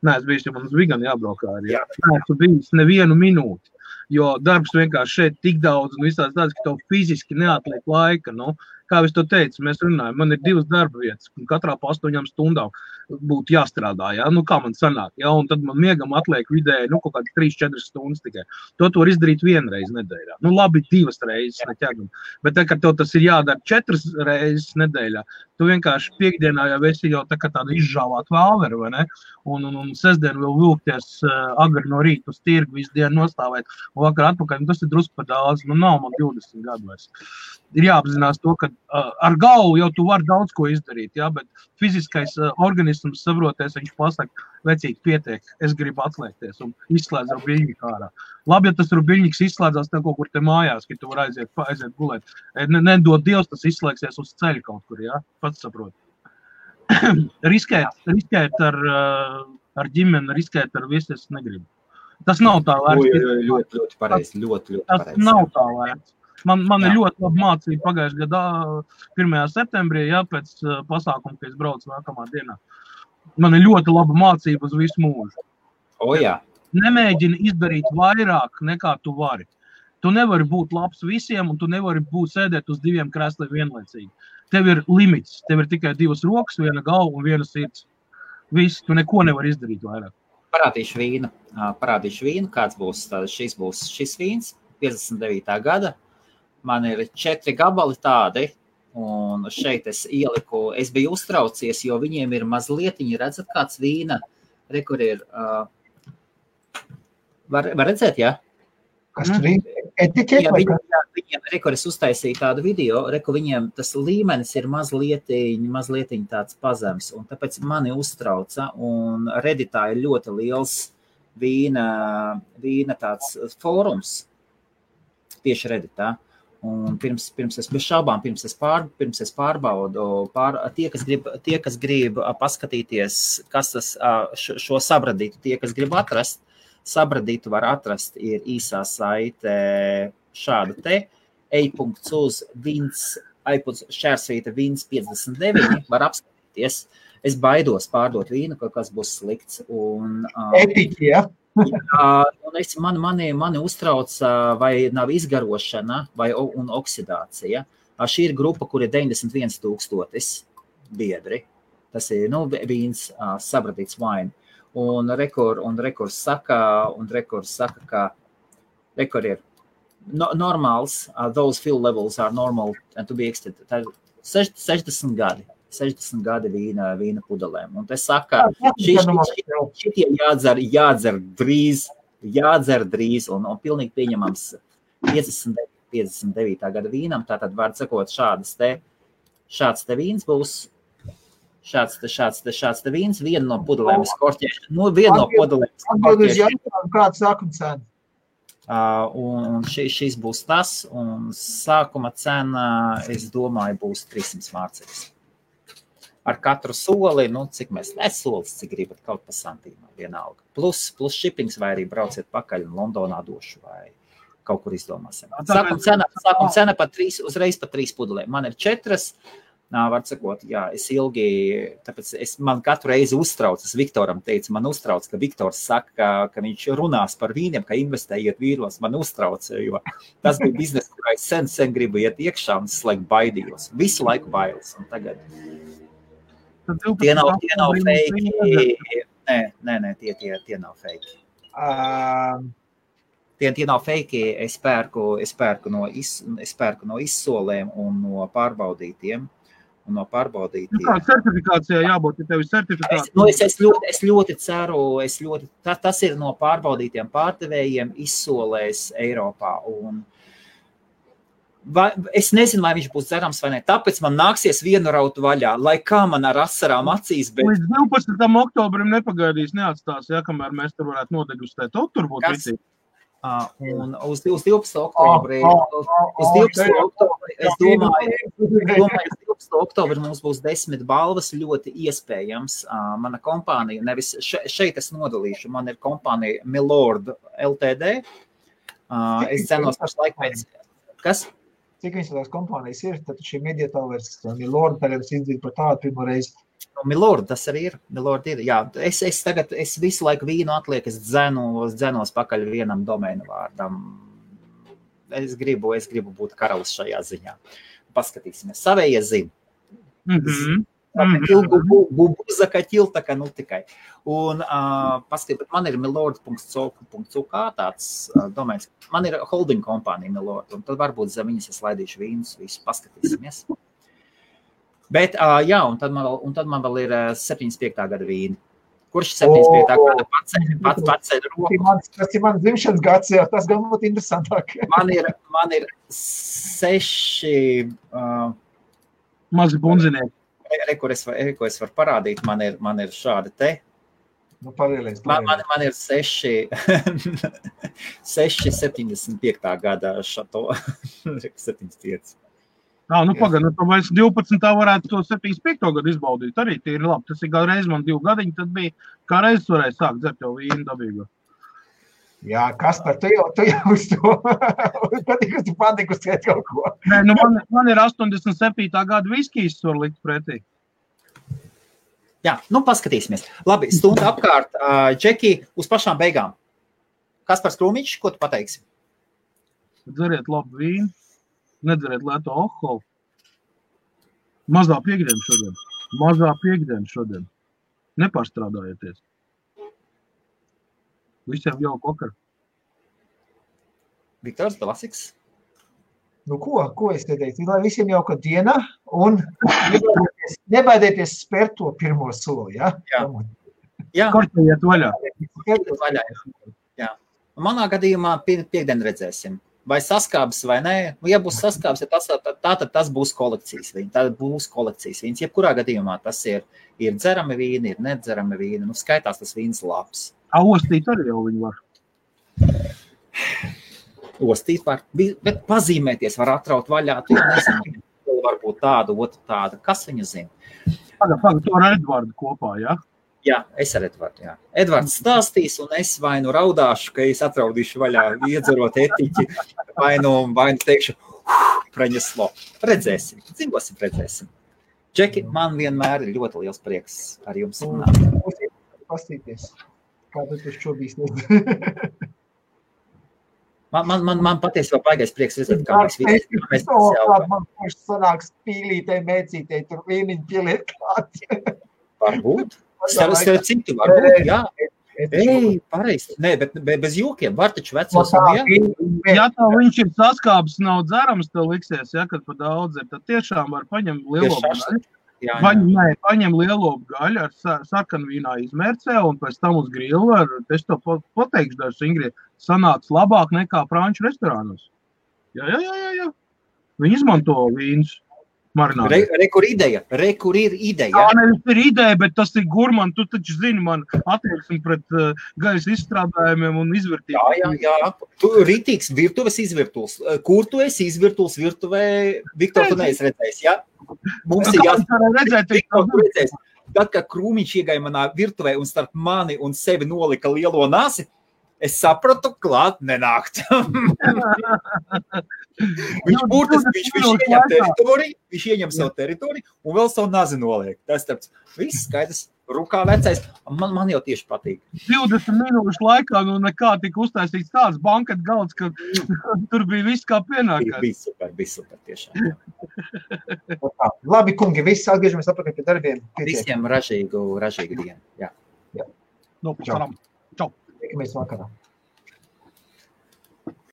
Neesmu bijis, jo man uz Viganu jābraukā arī. Neesmu bijis nevienu minūti, jo darbs vienkārši šeit tik daudz un visās tāds, ka tev fiziski neatliek laika, nu. Kā es to teicu, mēs runājam, man ir 2 darba vietas, un katrā pa 8 stundām būtu jāstrādā, ja? Nu, kā man sanāk, ja? Un tad man miegam atliek vidēji, nu, kaut kādi 3-4 stundas tikai. To var izdarīt vienreiz nedēļā. Nu, labi, 2 reizes neķegam. Bet tā, kad tev tas ir jādara 4 reizes nedēļā, tu vienkārši piekdienā jau esi jau tā kā tāda izžāvāt vāveru, vai ne? Un sestdien vēl vilkties agri no rīta uz tirgu, visu dienu nostāvēt, un vakar atpakaļ, un tas ir drusku par daudz, nu, nav man 20 gadu vairs. Ir jāapzinās to, ka ar galvu jau tu vari daudz ko izdarīt, ja, bet fiziskais organisms saproties, viņš pasaka, vecīgi pietiek, es gribu atslēgties un izslēdz rubiļņiku ārā. Labi, ja tas rubiļņiks izslēdzās tev kaut kur te mājās, ka tu var aiziet gulēt. Nedod Dievs, tas izslēgsies uz ceļa kaut kur, ja, pats saprot. riskēt ar ģimeni, riskēt ar visu, es negribu. Tas nav tā vērts. Ļoti pareizi, ļoti pareizi. Tas nav tā vērts. Man ir ļoti laba mācība pagājušajā gadā 1. septembrī, ja, pēc pasākuma, ka es braucu nākamā dienā. Man ir ļoti laba mācība uz visu mūžu. Jā. Nemēģini izdarīt vairāk nekā tu vari. Tu nevari būt labs visiem, un tu nevari sēdēt uz 2 krēsliem vienlaicīgi. Tev ir limits, tev ir tikai 2 rokas, 1 galva un 1 sirds. Viss, tu neko nevari izdarīt vairāk. Parādīšu vīnu, kāds būs, šis vīns, 59. gada. Man ir 4 gabali tādi, un šeit es ieliku, es biju uztraucies, jo viņiem ir mazlietiņi, redzat, kāds vīna, kur ir, var redzēt, jā? Kas tur ir? Etiķeti? Viņiem, es uztaisīju tādu video, viņiem tas līmenis ir mazlietiņi tāds pazems, un tāpēc mani uztrauca, un Redditā ir ļoti liels vīna tāds fórums, tieši Redditā. Un pirms es bez šaubām, pirms es pārbaudu, tie, kas grib paskatīties, kas tas šo sabradītu, tie, kas grib atrast, sabradītu var atrast, ir īsā saite šāda te, e.uz šķērsvīta vīns 59, var apskatīties. Es baidos pārdot vīnu, kaut kas būs slikts. Etiķi, ja? Un mani uztrauc, vai nav izgarošana un oksidācija. Šī ir grupa, kur ir 91 000 biedri. Tas ir vīns, sabradīts wine. Un rekors saka, ka rekor ir normāls, those fuel levels are normal and to be extended. Tā ir 60 gadi. 60 gadi vīna pudelēm. Un te saka, šitie jādzer drīz un pilnīgi pieņemams 59. gada vīnam. Tātad var sakot, šāds te vīns būs, šāds te vīns, viena no pudelēm skorķēšana. Viena no pudelēm skorķēšana. Kāds sākuma cena? Un šis būs tas, un sākuma cena, es domāju, būs 300 mārciņas. Ar katru soli, cik solis, cik gribat, kaut pa santīmā, vienalga. Plus shippings, vai arī brauciet pakaļ un Londonā došu, vai kaut kur izdomāsim. Sākuma cena uzreiz pa 3 pudelēm. Man ir 4, var sakot, jā, es ilgi, tāpēc man katru reizi uztraucas, Viktoram teica, man uztrauc, ka Viktors saka, ka viņš runās par vīniem, ka investējiet vīros, man uztrauc, jo tas bija biznes, kurā es sen gribu iet iekšā un es laiku baidījos. Visu laiku bailes, un tagad... Tie nav fake. Nē, tie nav fake. Tie nav fake. Es pērku no izsolēm un no pārbaudītiem. Kā certifikācijā jābūt, ja tev ir certifikācija? Es ļoti ceru, tas ir no pārbaudītiem pārdevējiem izsolēs Eiropā. Es nezinu, vai viņš būs dzerams vai ne, tāpēc man nāksies vienu raut vaļā, lai kā man ar asarām acīs, bet... Līdz 12. oktobrim nepagaidīs, neatstās, ja, kamēr mēs tur varētu nodegustēt. Tur būtu visi. Un uz 12. oktobri, es domāju, 12. oktobri mums būs 10 balvas, ļoti iespējams. Mana kompānija, nevis šeit es nodalīšu, man ir kompānija Milord LTD. Es cenos pašlaik pēc... Kas? Cik viņas tās kompānijas ir, tad šī mediatāvers Milord tagad es izdzīju par tādu pirmo reizi. Milord, tas arī ir. Milord ir, jā. Es visu laiku vīnu atliek, es dzenos pakaļ vienam domēnu vārdam. Es gribu būt karalis šajā ziņā. Paskatīsimies. Savējie zina. Zakatил, tā kā nu tikai. Un paskatīt, man ir milord.co.uk tāds domēns. Man ir holding kompānija Milord, un tad varbūt zem viņas es laidīšu vīnus, visu paskatīsimies. Bet, jā, un tad man vēl ir 75. gada vīni. Kurš 75. gada paceļ roku? Tas ir mans dzimšanas gads, jā, tas gan būtu interesantāk. Man ir 6... Mazi bunzinieki. Ko es varu parādīt, man ir šādi te. Nu, palielies. Man ir 6,75. gada šato. 75. Nu pagaid, nu mēs 12. varētu to 75. gadu izbaudīt. Arī tie ir labi. Tas ir kā reiz man 2 gadiņi, tad bija kā reiz varēja sākt dzert jau vīnu dabīgo. Jā, Kaspar, tu jau uz to patīk, tu patīkustēt kaut ko. Nē, nu man ir 87. gada viskijas var likt pretī. Jā, nu paskatīsimies. Labi, stunda apkārt. Džeki, uz pašām beigām. Kaspars Krūmiņš, ko tu pateiksi? Dzeriet labu vīnu, nedzeriet lēto alkoholu. Mazā piekdiena šodien. Nepārstrādājieties. Visiem jau kokar. Viktors Dalasiks. Nu ko es te teicu? Lai visiem jauka diena un nebaidieties spērt to pirmo soli, ja? Jā. Kortējiet vaļā. Jā. Manā gadījumā piekdien redzēsim. Vai saskābs vai nē. Ja būs saskābs, tad tas būs kolekcijas vīns. Jebkurā gadījumā tas ir dzerami vīni, ir nedzerami vīni. Nu, skaitās tas vīns labs. Ostīt arī jau viņi var. Ostīt var, bet pazīmēties var atraut vaļā. Tu jau nezinu, varbūt tādu, otru tādu. Kas viņu zina? Pagaid, tu ar Edvardu kopā, jā? Jā, es ar Edvardu, jā. Edvards stāstīs, un es vai nu raudāšu, ka es atraudīšu vaļā, iedzerot etiķi, vai nu teikšu, praņeslo. Redzēsim, dzīvosim, redzēsim. Džeki, man vienmēr ir ļoti liels prieks ar jums runāt. Pastīties, kā tu šobīs Man patiesībā baigais prieks redzēt, kā mēs visi. Man paši sanāks pīlītei, mēcītei, tur vīniņi pieliet klāt. Varbūt. Starp citu, varbūt, jā. Ei, pareizi. Nē, bet bez jokiem. Var taču vecos un jā. Ja tā viņš ir saskābs, nav dzerams, tev liksies, ja, kad pa daudz ir, tad tiešām var paņemt lielo gaļu. Paņem lielo gaļu ar sarkanvīnā izmērcē un pēc tam uz grilu ar, es to pateikšu dažs ingredientus, sanāks labāk nekā franču restorānos. Jā. Viņi izmanto vīnus. Rekur ir ideja. Jā, nevis ir ideja, bet tas ir gurman. Tu taču zini man attieksmi pret gaisa izstrādājumiem un izvirtībām. Jā. Tu rītīgs virtuves izvirtuls. Kur tu esi izvirtuls virtuvē? Viktor, tu neesi redzējis, jā? Mums ir redzēt. Tad, kad Krūmiņš iegāja manā virtuvē un starp mani un sevi nolika lielo nasi, es sapratu, klāt nenākt. Viņš ieņem savu teritoriju un vēl savu nazi noliek. Tas tāds viss skaidrs, rukā vecais, man jau tieši patīk. 20 minūšu laikā nekā tika uztaisīts tāds banket galds, ka tur bija viss kā pienākās. Bija super tiešām. Labi, kungi, viss atgriežamies atpakaļ pie darbiem. Visiem ražīgu dienu. Jā. Čau. Tiekamies vakarā.